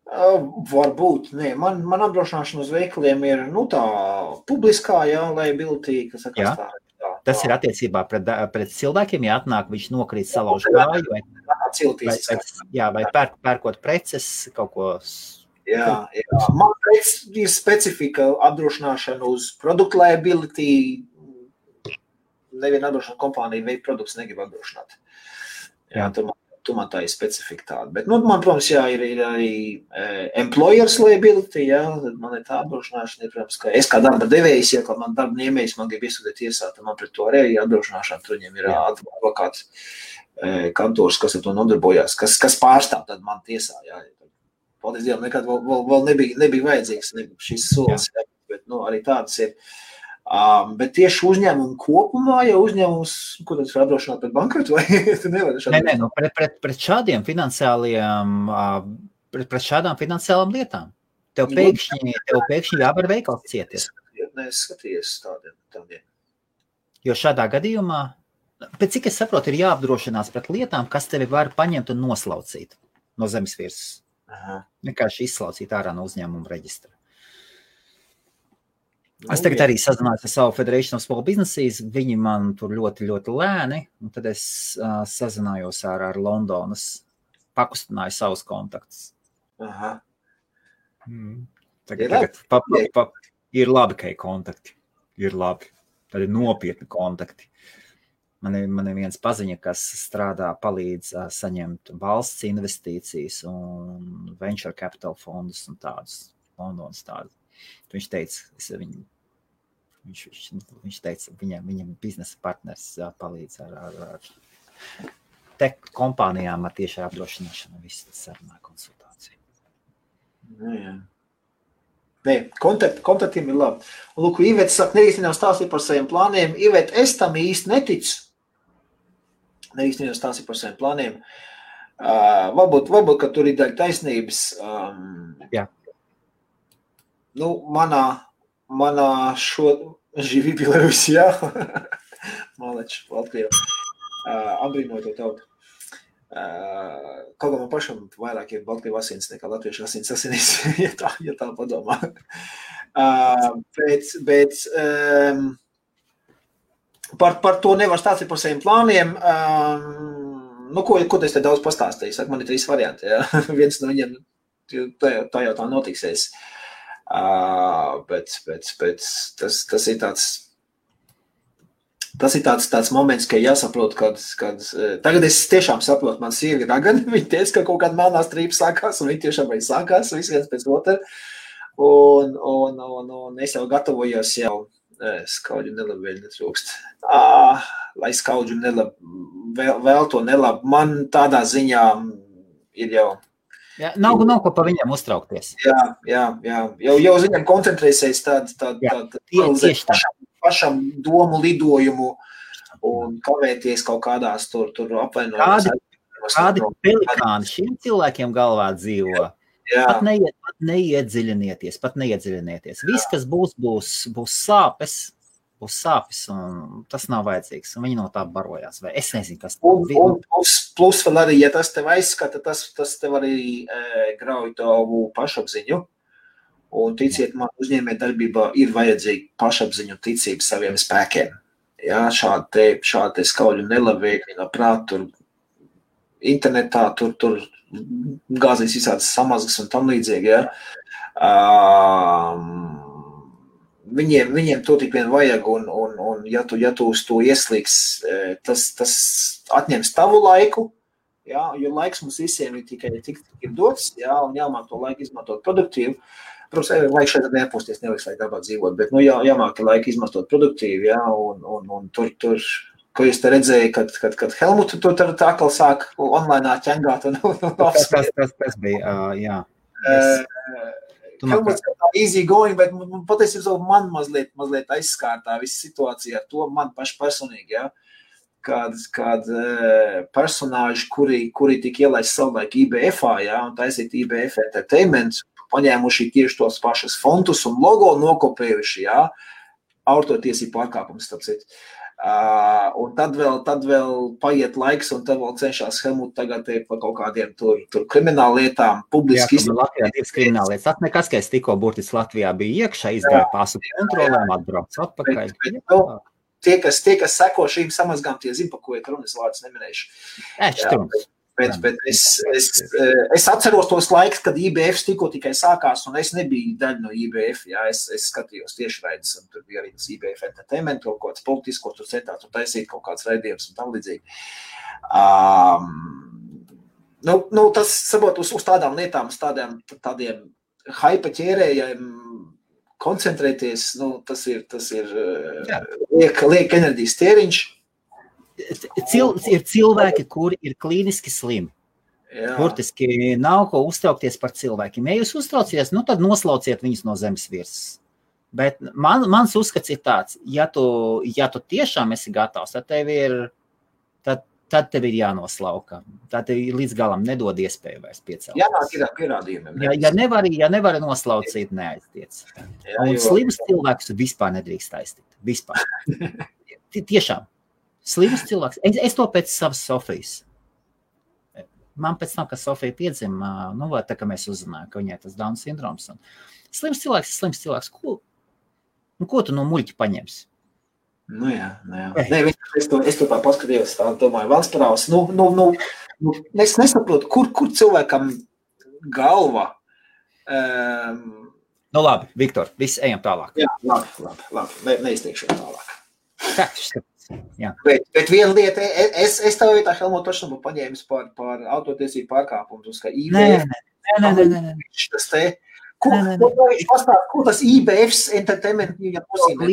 Varbūt, nē. Man apdrošināšana uz veikaliem ir, tā publiskā, liability, kas sakās tā. Tas ir attiecībā pret cilvēkiem, ja atnāk, viņš nokrīt salauž kāju, vai pērkot preces, kaut ko. Jā. Man ir specifika apdrošināšana uz product liability. Neviena apdrošināšana kompānija veikt produkts negrib apdrošināt. Tu man tā ir specifika tāda. Bet, man, protams, ir arī employers liability, man ir tā apdrošināšana, protams, ka es kā darba devējs, ja man darba ņēmējs, man grib iesūtīt tiesā, tad man pret to arī apdrošināšana, tur viņiem ir advokāts kantors, kas ar to nodarbojās, kas pārstāv tad man tiesā, Paldies Dievam, nekad vēl nebija vajadzīgs šis solis, bet, arī tādas ir. Bet tieši uzņēmumu kopumā, ja uzņēmums, ko tas ir apdrošināt pret bankrotu, vai tu nevari šādi? Nē, pret šādām finansiālām lietām. Tev pēkšņi jāvar veikals cieties. Nē, es skaties tādiem. Jo šādā gadījumā, pēc cik es saprotu, ir jāapdrošinās pret lietām, kas tevi var paņemt un noslaucīt no zemes virsmas. Vienkārši izslaucīt ārā no uzņēmuma reģistra. Es tagad arī sazinājos ar savu Federation of Small Businesses, viņi man tur ļoti, ļoti lēni, un tad es sazinājos ar Londonas, pakustināju savus kontaktus. Tagad ir labi, ka ir kontakti, ir labi, tad ir nopietni kontakti. Man ir viens paziņa, kas strādā, palīdz saņemt valsts investīcijas un venture capital fondus un tādus, Londonas tādus. Viņš teica, viņš teica, viņam biznesa partners palīdz ar tech kompānijām ar tieši apdrošināšanu, viss tas sarunā konsultāciju. Nē, kontaktiem ir labi. Un, lūk, Iveta saka, nerīstinām stāstīt par saviem plāniem. Iveta, es tam īsti neticu. Nerīstinām stāstīt par saviem plāniem. Varbūt, ka tur ir daļa taisnības. Jā. Manā šo živi Bielorus, Malači, Latviju, apbrīnoju to tautu. Kaut kā man pašam vairāk ir Baltkrievu asins nekā latviešu asinīs, ja tā padomā. Bet par to nevar stāstīt par saviem plāniem. Ko es te daudz pastāstīju? Saka, man ir 3 varianti. Viens no viņiem tā jau tā notiksies. Bet tas ir tāds moments, ka jāsaprot, kad tagad es tiešām saprotu, man sievi ir ragani, viņi teica, ka kaut kāda melnā strīpa sākās, un viņi tiešām arī sākās, viens pēc otra, un es jau gatavojos skaudžu nelabi vēl netrūkst. Lai skaudžu nelabi, vēl to nelabi, man tādā ziņā ir jau. Jā, nav ko pa viņiem uztraukties. Jā. Jau uz viņiem koncentrēsies pašam domu lidojumu un kavēties kaut kādās tur apvainojumās. Kādi pelikāni šiem cilvēkiem galvā dzīvo? Pat neiedziļinieties. Viss, kas būs sāpes, un tas nav vajadzīgs, un viņi no tā barojās, vai es nezinu, kas un plus vēl arī, ja tas tev aizskata, tas tev arī grauj tavu pašapziņu, un ticiet man, uzņēmē darbībā ir vajadzīga pašapziņu ticība saviem spēkiem. Šādi skaudļu nelabvēkļi no prāt, tur internetā, tur gāzīs visādas samazgas un tam līdzīgi, Viņiem to tik vien vajag, un ja tu uz to ieslīgs, tas atņems tavu laiku, jā, jo laiks mums visiem ir tikai tik ir dots, jā, un jāmāk to laiku izmantot produktīvi. Protams, vajag šeit nepūsties, nevajag lai darbā dzīvot, bet, jāmāk laiku izmantot produktīvi, jā, un tur, ko jūs te redzēju, kad Helmutu tur tā atkal sāk online ķengāt un Tas bija, jā. Helmuts kā easy going, bet patiesībā man mazliet aizskārtā visa situācija ar to man personīgi, jā. Kād personāži, kuri tik ielaist savulaik IBF-ā, jā, un taisīt IBF Entertainment, paņēmuši tieši tos pašas fontus un logo nokopējuši, jā, autortiesību pārkāpums, starp citu. Un tad vēl paiet laiks, un tad vēl cenšas Helmut tagad par kaut kādiem tur krimināla lietām publiski izdarīt. Jā, Latvijā divas krimināla lietas. Tas nekas, ka es tikko burtiski Latvijā biju iekšā, izgāju pasu kontrolēm, atbraucu atpakaļ. Tie, kas seko šīm samazgām, tie zina, pa ko ir runas vārdus neminējuši. Bet es atceros tos laiks, kad IBF tikko tikai sākās, un es nebiju daļa no IBF, jā, es skatījos tieši raidus, un tur bija arī tas IBF Entertainment, kaut kāds politisko, tur centās, tur taisīt kaut kāds raidījums un tam līdzīgi. Tas, sabot, uz tādām lietām, uz tādiem haipa ķērējiem koncentrēties, tas ir liek enerģijas tēriņš. Ir cilvēki, kuri ir klīniski slimi. Burtiski nav ko uztraukties par cilvēkiem. Ja jūs uztraucies, tad noslauciet viņus no zemes virsmas. Bet mans uzskats ir tāds, ja tu tiešām esi gatavs, tad tev ir jānoslauka. Tad tev līdz galam nedod iespēju vairs piecelt. Jānāk ir pierādījumiem. Ja nevari noslaucīt, neaiztiec. Un slimus cilvēkus vispār nedrīkst aiztikt. Vispār. Tiešām. Slims cilvēks. Es to pēc savas Sofijas. Man pēc tam, kad Sofija piedzima, tā kā mēs uzzinājām, ka viņai tas Down sindroms. Slims cilvēks ir slims cilvēks. Ko tu no muļķa paņemsi? Jā. Es to tā paskatījos, tā domāju, Valsparāvs. Es nesaprotu, kur cilvēkam galva. Labi, Viktor, visi ejam tālāk. Jā, labi. Neizteikšu tālāk. Jā. Bet viena lieta, es tev vietā Helmut tošanu būtu paņēmis par autortiesību pārkāpumus, ka IBF... Nē. Tas te... Ko tas IBF's Entertainment viņam nozīmē?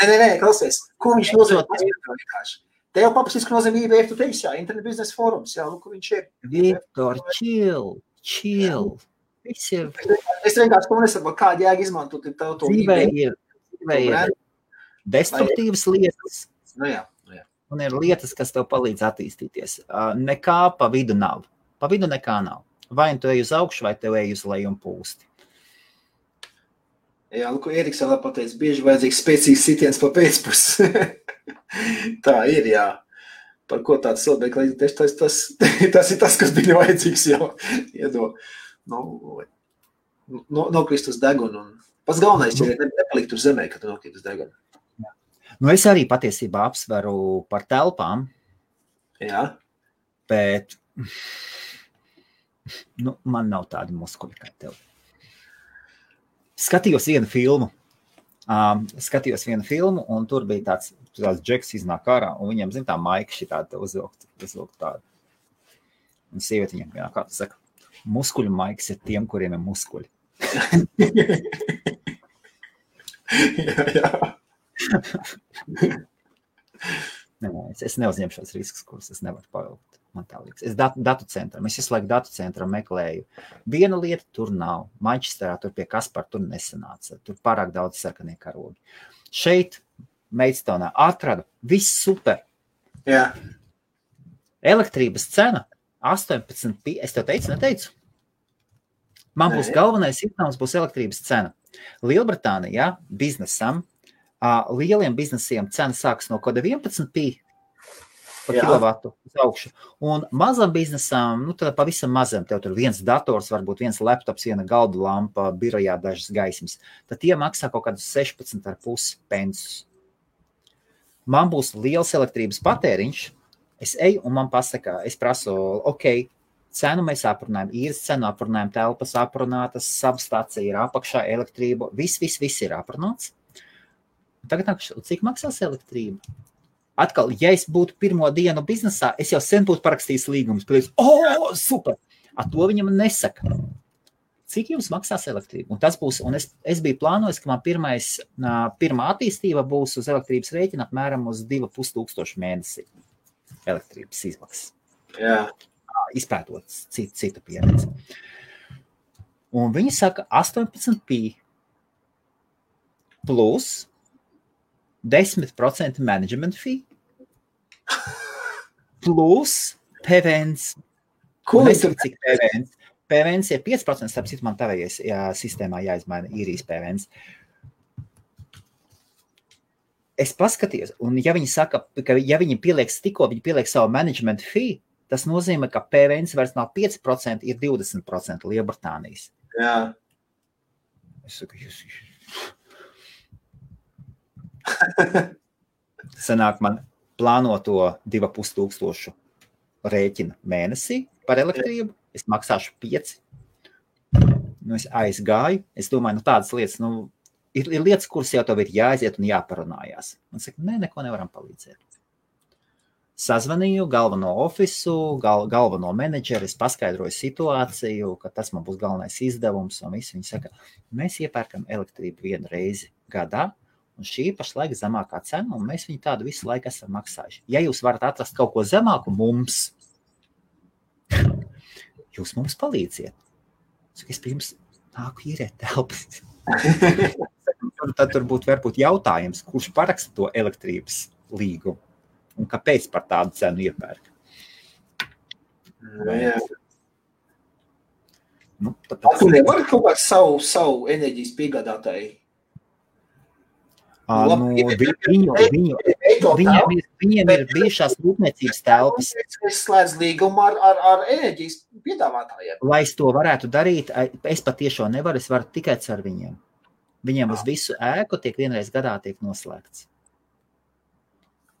Nē, klausies. Ko viņš nozīmē? Te jau paprasīs, ka nozīmē IBF, tu teiksi, jā, Internet Business Forums, jā, kur viņš ir. Viktor, chill. Es vienkārši to nesaprotu, kādu jēgu izmantot tev to IBF. Dzīvē ir destruktīvas lietas, jā. Un ir lietas, kas tev palīdz attīstīties. Nekā pa vidu nav. Pa vidu nekā nav. Vai tu ej uz augšu, vai tev ej uz leju un pūsti. Jā, ko Eriks vēl pateica, bieži vajadzīgs spēcīgs sitiens pa pēcpusi. Tā ir, jā. Par ko tāds cilvēks, tas ir tas, kas bija vajadzīgs jau. Nokrist uz degunu. Pats galvenais ir nepalikt uz zemē, kad tu nokrīt uz degunu. Es arī patiesībā apsveru par telpām. Jā. Bet man nav tādi muskuļi kā tev. Skatījos vienu filmu, un tur bija tāds džeks iznāk ārā, un viņam, tā maika šitāda uzvilkt tādu. Un sieviete viņam, kā tu saka, muskuļu maikas ir tiem, kuriem ir muskuļi. Jā. Es neuzņemšos riskus, kurus es nevaru pavilkt. Man tā liekas. Es datu centram, es visu laiku datu centram meklēju. Viena lieta tur nav. Manchesterā tur pie Kaspara tur nesanāca. Tur pārāk daudz sarkanie karogi. Šeit, Maidstoneā, atradu. Viss super. Jā. Elektrības cena 18, es tev neteicu? Man būs galvenais iznākums, būs elektrības cena. Lielbritānijā biznesam, lieliem biznesiem cena sāks no koda 11p par kilovatu uz augšu. Un mazam biznesam, tad pavisam mazam, tev tur viens dators, varbūt viens laptops, viena galdu lampa, birojā dažas gaismas. Tad tie maksā kaut kādus 16,5 pensus. Man būs liels elektrības patēriņš, es eju un man pasaka, es prasu, cenu mēs aprunājam, īres cenu aprunājam, telpas aprunātas, substācija ir apakšā, elektrība, viss ir aprunāts. Tagad cik maksās elektrība? Atkal, ja es būtu pirmo dienu biznesā, es jau sen būtu parakstījis līgumus. Super! A to viņam nesaka. Cik jums maksās elektrība? Un tas būs, un es biju plānojis, ka man pirmā attīstība būs uz elektrības rēķina apmēram uz 2500 mēnesī elektrības izmaksas. Jā. Izpētot citu pieredzi. Un viņi saka 18p plus 10% management fee plus PVNs. Ko Nezinu, cik PVNs? PVNs ir 5%, starp citu man tavējais sistēmā jāizmaina īrijas PVNs. Es paskatījos, un ja viņi saka, ka ja viņi pieliek savu management fee, tas nozīmē, ka PVNs vairs nav 5%, ir 20% Lielbritānijas. Jā. Es saku, Sanāk man plānoto 2500 rēķina mēnesī par elektrību. Es maksāšu 5. Es aizgāju. Es domāju, tādas lietas, ir lietas, kuras jau tev ir jāaiziet un jāparunājās. Man saka, neko nevaram palīdzēt. Sazvanīju galveno ofisu, galveno menedžeri, es paskaidroju situāciju, ka tas man būs galvenais izdevums, un visi viņi saka, mēs iepērkam elektrību 1 reizi gadā, un šī pašlaik zemākā cena, un mēs viņu tādu visu laiku esam maksājuši. Ja jūs varat atrast kaut ko zemāku mums, jūs mums palīdziet. Es pirms nāku īrēt telpas. Tad tur būtu varbūt jautājums, kurš paraksta to elektrības līgumu un kāpēc par tādu cenu iepērk. Jā. Tu nevari kaut kādu savu enerģijas piegādātāju? Viņiem ir bijušās rūpniecības telpas. Es slēdzu līgumu ar enerģijas piedāvātājiem. Lai es to varētu darīt, es patiešām nevaru, es varu tikai ar viņiem. Viņiem uz visu ēku vienreiz gadā tiek noslēgts.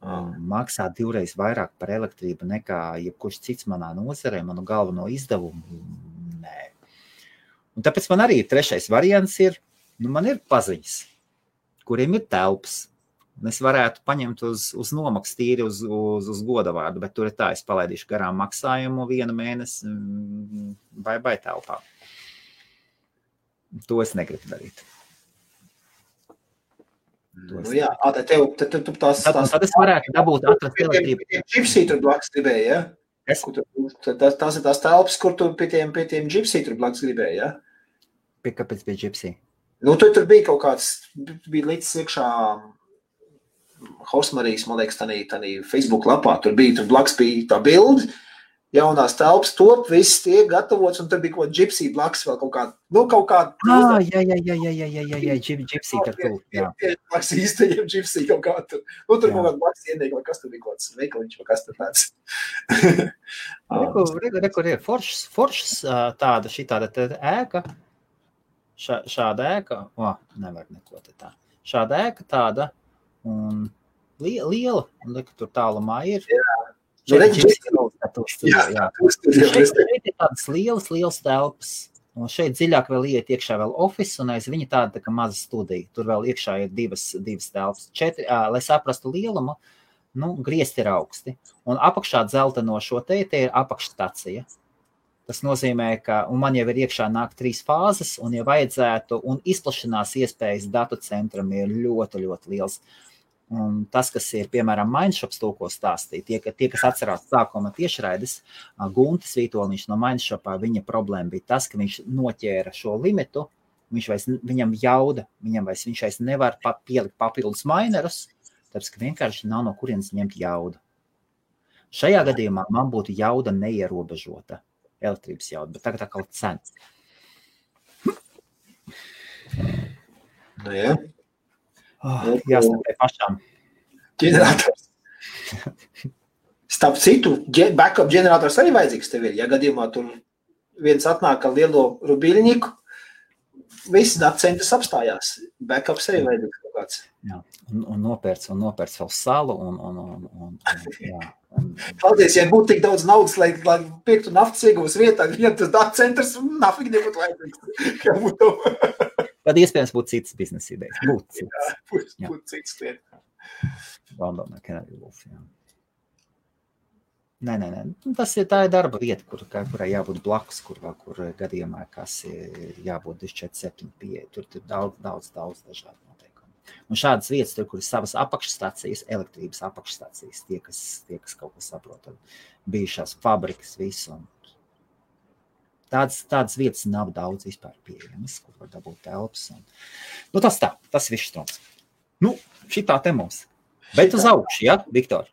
Maksā 2 reizes vairāk par elektrību nekā jebkurš cits manā nozarē, manu galveno izdevumu. Nē. Un tāpēc man arī 3. variants ir, man ir paziņas, kuriem ir telpas. Es varētu paņemt uz nomaksu tīri uz godavārdu, bet tur ir tā, es palaidīšu garām maksājumu 1 mēnesi vai telpā. To es negribu darīt. Jā, tad tās... Tad es varētu dabūt atrast elektrību. Gypsy tur blakus gribēja, ja? Tās ir tās telpas, kur tu pie tiem Gypsy tur blakus gribēja, ja? Kāpēc bija Gypsy? Tur bija kaut kāds, bija līdz iekšā Horsmarijas, man liekas, tādā Facebook lapā. Tur blakus bija tā bildi, jaunās telpas top, viss tiek gatavots, un tur bija kaut Gypsy blakus vēl kaut kāda. Jā, Gypsy par to. Blakus īstajiem Gypsy kaut kā tur. Tur kaut kāda blakus ienīga, vai kas tur bija kaut kāds veikaliņš, vai kas tur tāds. Kur ir foršs tāda, šitāda ēka. Šāda ēka, nevar neko te tā. Šāda ēka tāda un liela, un tur tālumā ir. Šeit ir tādas lielas telpas, un šeit dziļāk vēl iet iekšā vēl office, un aiz viņa tāda kā maza studija. Tur vēl iekšā ir divas telpas. 4, lai saprastu lielumu, griezti ir augsti. Un apakšā dzelteno šo te ir apakšstacija. Tas nozīmē, ka man jau ir iekšā nāk 3 fāzes, un ja vajadzētu, un izplašanās iespējas datu centram ir ļoti, ļoti liels. Un tas, kas ir, piemēram, Mindshops to, ko stāstīja, tie, kas atcerās sākuma tiešraides, Guntis Vītoliņš no Mindshopā, viņa problēma bija tas, ka viņš noķēra šo limitu, viņam jauda, viņš vairs nevar pielikt papildus minerus, tāpēc, ka vienkārši nav no kurienes ņemt jaudu. Šajā gadījumā man būtu jauda neierobežota. Elektrības jauda, bet tagad atkal cena. Jā. Jāstāpē pašām. Ģenerators. Starp citu, backup ģenerators arī vajadzīgs tev ir. Ja gadījumā tur viens atnāk ar lielo rubiļņiku, visi datacentrs apstājās. Backups arī vajadzīgs kaut kāds. Jā, un nopērts vēl salu jā. Paldies, ja būtu tik daudz naudas, lai pirktu naftas ieguvas vietā, ja tas datacentrs nafīgi nebūtu vajadzīgs. Tad iespējams būtu citas biznesa idejas. Būtu citas lietas. Londonā, Canary Wharf, jā. Nē. Tā ir darba vieta, kurai jābūt blakus, kur gadījumā, kas ir jābūt 24, 75. Tur daudz dažādu noteikumu. Un šādas vietas, tur, kur ir savas apakšstācijas, elektrības apakšstācijas, tie, kas kaut ko saprot, bijušās fabrikas, visu. Tādas vietas nav daudz vispār pieejamas, kur var dabūt telpas. Tas viss strums. Šitā te mums. Bet uz augšu, ja, Viktor?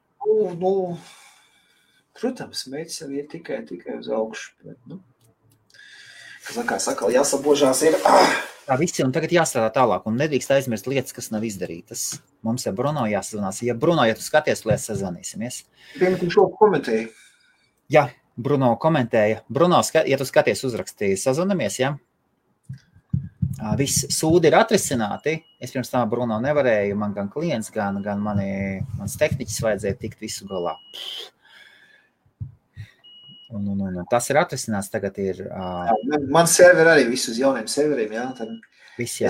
Protams, mērķis arī ir tikai uz augšu. Bet, kā saka, jāsabožās ir. Tā visi, un tagad jāstrādā tālāk, un nedrīkst aizmirst lietas, kas nav izdarītas. Mums ar Bruno jāsazvanās. Bruno, ja tu skaties, lietas sazvanīsimies. Pirmkārt, šo komentēju. Jā, Bruno komentēja. Bruno, ja tu skaties, uzrakstīji, sazvanamies, ja? Viss sūdi ir atrisināti. Es pirms tam Bruno nevarēju, man gan klients, gan mans tehniķis vajadzēja tikt visu galā. Un tas ir atrisināts, tagad ir... Man serveri arī visu uz jauniem serveriem, jā. Tad viss, jā,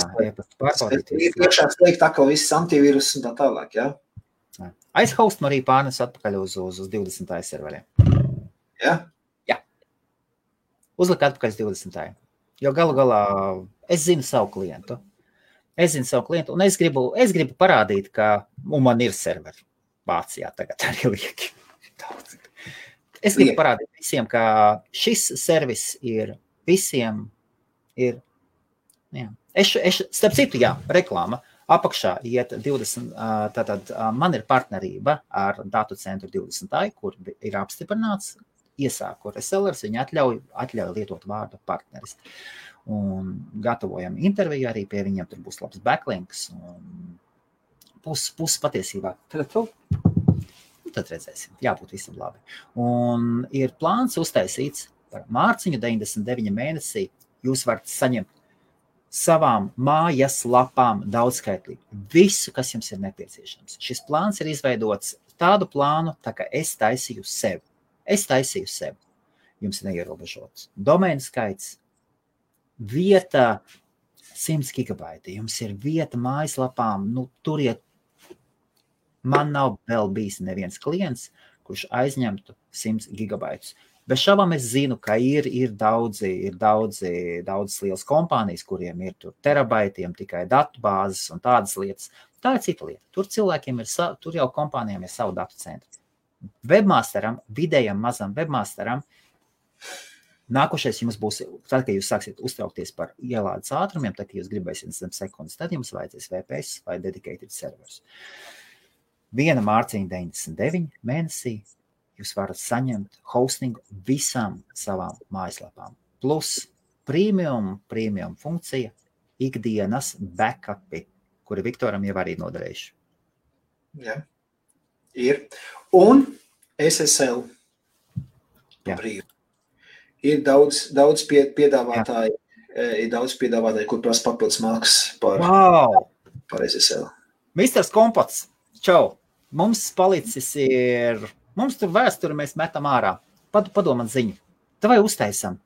pārbaudīt. Iekšā slēgt atkal viss antivīrus un tā tālāk, jā. Aizhaust arī pārnes atpakaļ uz 20. serveriem. Jā? Jā. Uzlikt atpakaļ uz 20. Jo galu galā es zinu savu klientu. Un es gribu parādīt, ka man ir serveri Vācijā tagad arī lieki. Daudz. Es gribu parādīt visiem, ka šis servis ir visiem ir, jā. Starp citu, jā, reklāma. Apakšā iet 20, tātad man ir partnerība ar datu centru 20, kur ir apstiprināts, iesāku resellers, viņi atļauj lietot vārdu partneris. Un gatavojam interviju arī pie viņiem, tur būs labs backlinks un puses patiesībā. Tad redzēsim, jābūt visam labi. Un ir plāns uztaisīts par mārciņu 99 mēnesī. Jūs varat saņemt savām mājas lapām daudzskaitlīgi. Visu, kas jums ir nepieciešams. Šis plāns ir izveidots tādu plānu, tā kā es taisīju sev. Jums ir neierobežots domēnu skaits, vieta 100 gigabaiti. Jums ir vieta mājaslapām, turiet. Man nav vēl bijis neviens klients, kurš aizņemtu 100 gigabaitus. Bez šaubām es zinu, ka ir daudz lielas kompānijas, kuriem ir tur terabaitiem tikai datu bāzes un tādas lietas. Tā ir cita lieta. Tur jau kompānijām ir savu datu centru. Webmasteram, vidējam mazam webmasteram, nākošais jums būs, tad, kad jūs sāksiet uztraukties par ielādes ātrumiem, tad, kad jūs gribēsiet zem sekundes, tad jums vajadzēs VPS vai dedicated servers. Viena mārciņa 99 mēnesī jūs varat saņemt hostingu visām savām mājaslapām. Plus premium funkcija, ikdienas backupi, kuri Viktoram jau arī noderējuši. Jā, ir. Un SSL. Jā. Ir daudz piedāvātāji, kur prasa papildus maksas par SSL. Misters Kompots, čau! Mums palicis ir, mums tur vēsturi mēs metam ārā. Padomāt ziņu. Vai uztaisam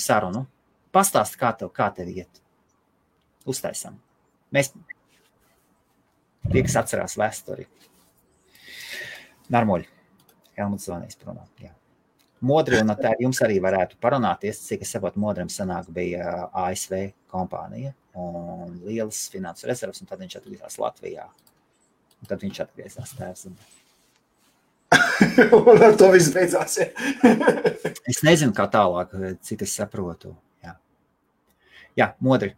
sarunu. Pastāst, kā tev iet. Uztaisam. Mēs tie, kas atcerās vēsturi. Narmoļi. Helmuts zvanīs pronā. Jā. Modri un tā jums arī varētu parunāties, cik es saprotu, Modrim sanāk bija ASV kompānija un lielas finansu rezervas, un tad viņš atgriezās Latvijā. Un tad viņš atgriezās tēvs. Un ar to viss beidzās, ja. Es nezinu, kā tālāk, cik es saprotu. Jā, Modri.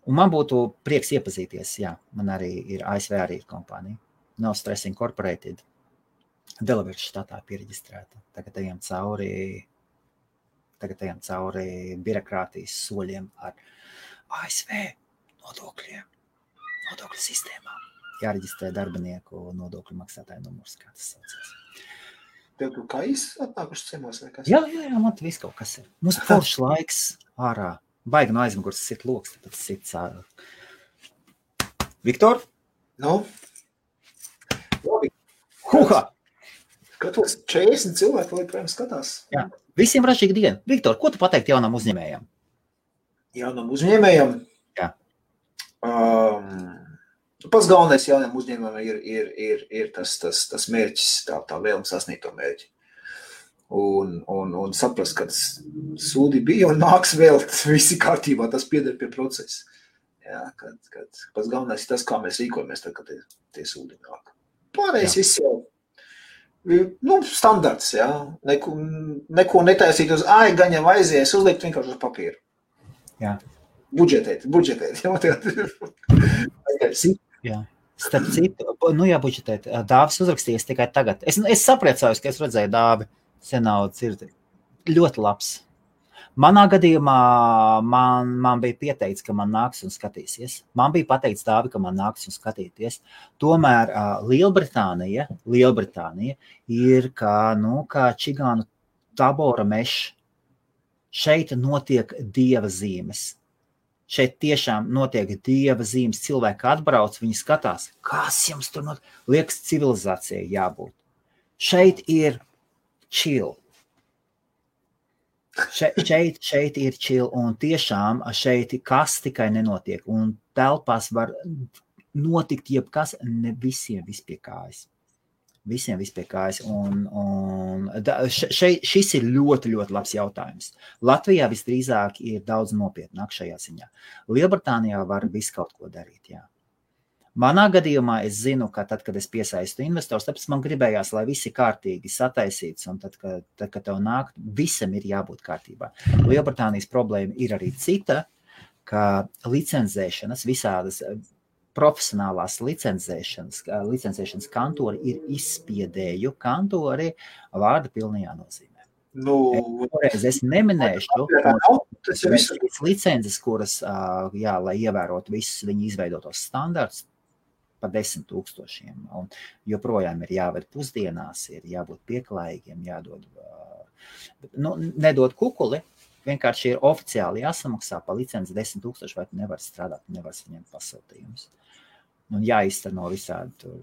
Un man būtu prieks iepazīties, jā. Man arī ir ASV arī ir kompānija. No Stress Incorporated. Delaware štatā piereģistrēta. Tagad ejam cauri birokrātijas soļiem ar ASV nodokļu sistēmām. Jāreģistrē darbinieku nodokļu maksātāju numurs, kā tas saucās. Tev tu kā atnākuši ciemos vai kas? Jā, man te viss kaut kas ir. Mums foršs laiks ārā. Baigi no aizmugurs sit loks, tāpēc sit cāru. Viktor? Labi. Huha! Skatos 40 cilvēku, lai projām skatās. Jā. Visiem ražīgi dienu. Viktor, ko tu pateikt jaunam uzņēmējam? Jaunam uzņēmējam? Jā. Pats galvenais jauniem uzņēmumiem ir tas mērķis, tā vēlme sasniegt to mērķi. Un saprast, ka sūdi bija un nāks vēl visi kārtībā, tas pieder pie procesa. Jā, kad pats galvenais ir tas, kā mēs rīkojamies, tad, kad tie sūdi nāk. Pārējais viss jau, standarts, jā. Neko netaisīt uz gan jau aizies, uzlikt vienkārši uz papīru. Jā. Budžetēt. Jā. Starp citu, jābudžetēt. Dāvis uzrakstījis tikai tagad. Es sapriecājos, ka es redzēju Dāvi senau dzirdi. Ļoti labs. Manā gadījumā man bija pieteicis, ka man nāks un skatīsies. Man bija pateicis Dāvi, ka man nāks un skatīties. Tomēr Lielbritānija ir kā čigānu tabora mešs. Šeit notiek dieva zīmes. Šeit tiešām notiek dieva zīmes. Cilvēki atbrauc, viņi skatās, kas jums tur notiek. Liekas, civilizācijai jābūt. Šeit ir chill. Šeit ir chill, un tiešām šeit kas tikai nenotiek. Un telpās var notikt jebkas, ne visiem vispie kājas. Visiem vispie kājas. Šis ir ļoti, ļoti labs jautājums. Latvijā visdrīzāk ir daudz nopietnāk šajā ziņā. Lielbritānijā var visu kaut ko darīt, jā. Manā gadījumā es zinu, ka tad, kad es piesaistu investors, tāpēc man gribējās, lai visi kārtīgi sataisīts, un tad, kad tev nāk, visam ir jābūt kārtībā. Lielbritānijas problēma ir arī cita, ka licenzēšanas, visādas profesionālās licencēšanas kantori ir izspiedēju kantori vārda pilnajā nozīmē. Es neminēšu licences, kuras, lai ievērotu visus viņu izveidotos standartus, pa 10 000. Un joprojām ir jāved pusdienās, ir jābūt pieklājīgiem, jādod, nedod kukuli, vienkārši ir oficiāli jāsamaksā pa licenci 10 000, vai tu nevar strādāt, nevar saņemt pasūtījumus. Un jāizteno visādi tur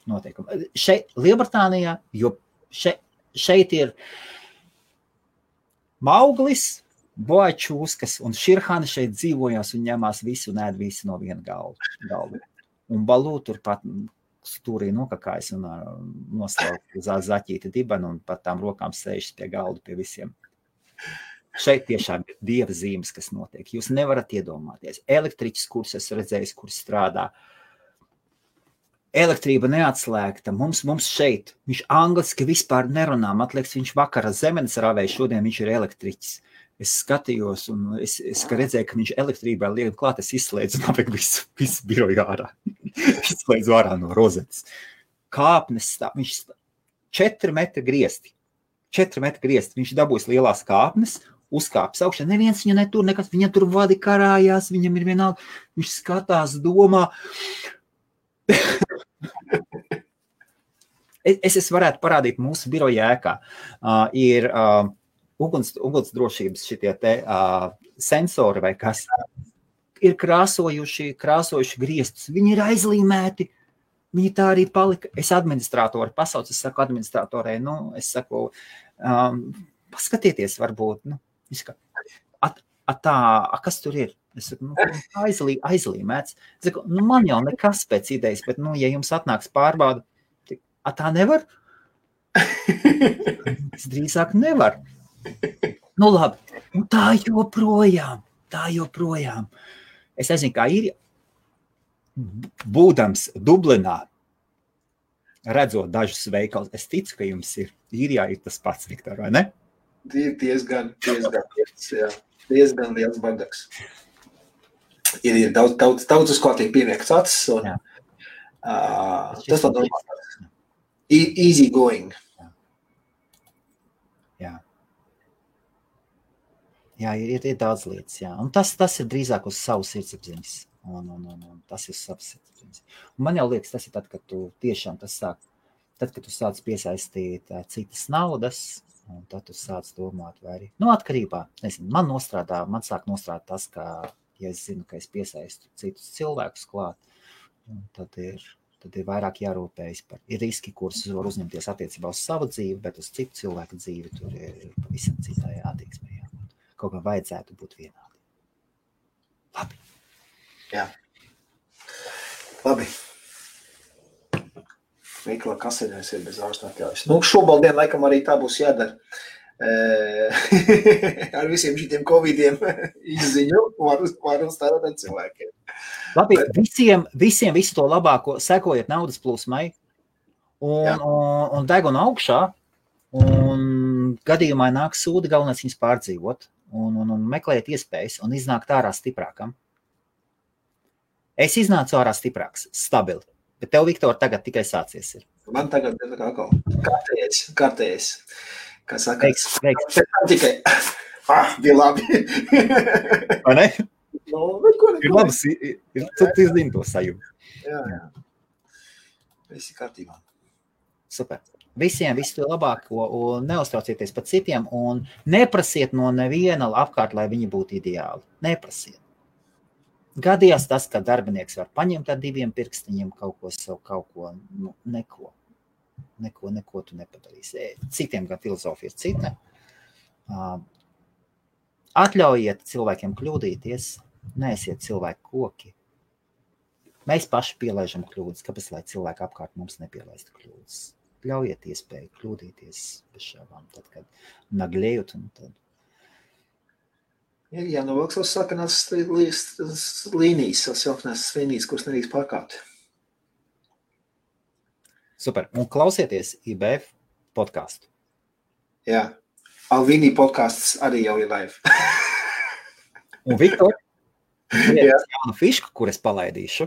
noteikumi. Šeit, Lielbritānijā, jo šeit ir Mauglis, Boačūskas un Širhana šeit dzīvojās un ņemās visu un ēd visu no viena galda. Un Balū turpat stūrī nokakājas un noslaukt uz zaķīti dibanu un pat tām rokām sēžas pie galda pie visiem. Šeit tiešām ir dieva zīmes, kas notiek. Jūs nevarat iedomāties. Elektriķis, kurus es redzējis, kurš strādā, elektrība neatslēgta. Mums šeit, viņš angliski vispār nerunā. Man liekas, viņš vakara zemenes rāvēja, šodien viņš ir elektriķis. Es skatījos un es redzēju, ka viņš elektrībā liek klāt, es izslēdzu un apēk visu biroju ārā. Izslēdzu ārā no rozetes. Kāpnes stāv, viņš 4 metri griesti. 4 metri griesti. Viņš dabūs lielās kāpnes, uzkāpis augšā. Neviens viņu netur, nekas, viņa tur vadi karājās, viņam ir vienalga. Viņš skatās, domā. Es varētu parādīt mūsu biroja ēkā. Ir ugunsdrošības šitie te sensori vai kas ir krāsojuši griestus. Viņi ir aizlīmēti. Viņi tā arī palika. Es administrātori pasaucu, es saku administrātorai, es saku, paskatieties varbūt, kas tur ir? Es saku, aizlīmēts. Es saku, man jau nekas pēc idejas, bet, ja jums atnāks pārbauda, tā nevar? Es drīzāk nevar. Labi, tā joprojām. Es nezinu, kā ir, būdams Dublinā, redzot dažus veikalus, es ticu, ka jums ir īrijā ir tas pats, Viktor, vai ne? Diezgan liels bardaks. Ir daudz uz kā tiek pieviekts acis, un tas tā normāls. Easy going. Jā, ir daudz lietas, jā. Un tas ir drīzāk uz savu sirdsapziņas. Un tas ir savs sirdsapziņas. Un man jau liekas, tas ir tad, kad tu tiešām kad tu sāc piesaistīt citas naudas, un tad tu sāc domāt, vai arī, atkarībā, nezinu, man sāk nostrādāt tas, ka, ja es zinu, ka es piesaistu citus cilvēkus klāt, tad ir vairāk jārūpējas par riski, kurus var uzņemties attiecībā uz savu dzīvi, bet uz citu cilvēku dzīvi tur ir pavisam citai attieksmē. Kaut kā vajadzētu būt vienādi. Labi. Jā. Labi. Veiklā kasinēs ir bez ārsta atļaujas. Nu, šobaldien laikam arī tā būs jādara. Ar visiem šitiem covidiem izziņu var uzstādāt ar cilvēkiem. Labi, visiem visu to labāko, sekojiet naudas plūsmai un deguna augšā, un gadījumā nāk sūdi, galvenais viņus pārdzīvot, un meklējiet iespējas, un iznākt ārā stiprākam. Es iznācu ārā stiprāks, stabili, bet tev, Viktor, tagad tikai sācies ir. Man tagad ir atkal kārtējies. Kā saka, veiks. Tikai, bija labi. Vai ne? No, ir labi, tu zini to sajūtu. Jā. Visi kārtībā. Super. Visiem visu to labāko, un neuztraucieties par citiem, un neprasiet no neviena apkārt, lai viņi būtu ideāli. Neprasiet. Gadījās tas, ka darbinieks var paņemt ar 2 pirkstiņiem kaut ko, neko tu nepadarīsi. Citiem gan filozofija ir cita. Atļaujiet cilvēkiem kļūdīties, neesiet cilvēku koki. Mēs paši pielaižam kļūdas, kāpēc lai cilvēki apkārt mums nepielaistu kļūdas. Ļaujiet iespēju kļūdīties bez šābām, tad, kad naglējot un tad. Jā, novilks savas sarkanās līnijas, savas jauknās līnijas, kuras nedrīkst pārkāpt. Super. Un klausieties IBF podcastu. Jā. Alvīnī podcasts arī jau ir live. Un Viktor, jaunu fišku, kur es palaidīšu.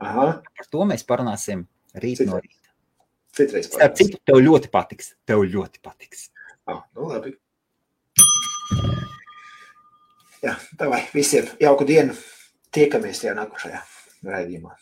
Aha. Par to mēs parunāsim rīt no rīta. Citreiz Starp citu, tev ļoti patiks. Nu labi. Jā, davai, visiem jauku dienu. Tiekamies tajā nākošajā raidījumā.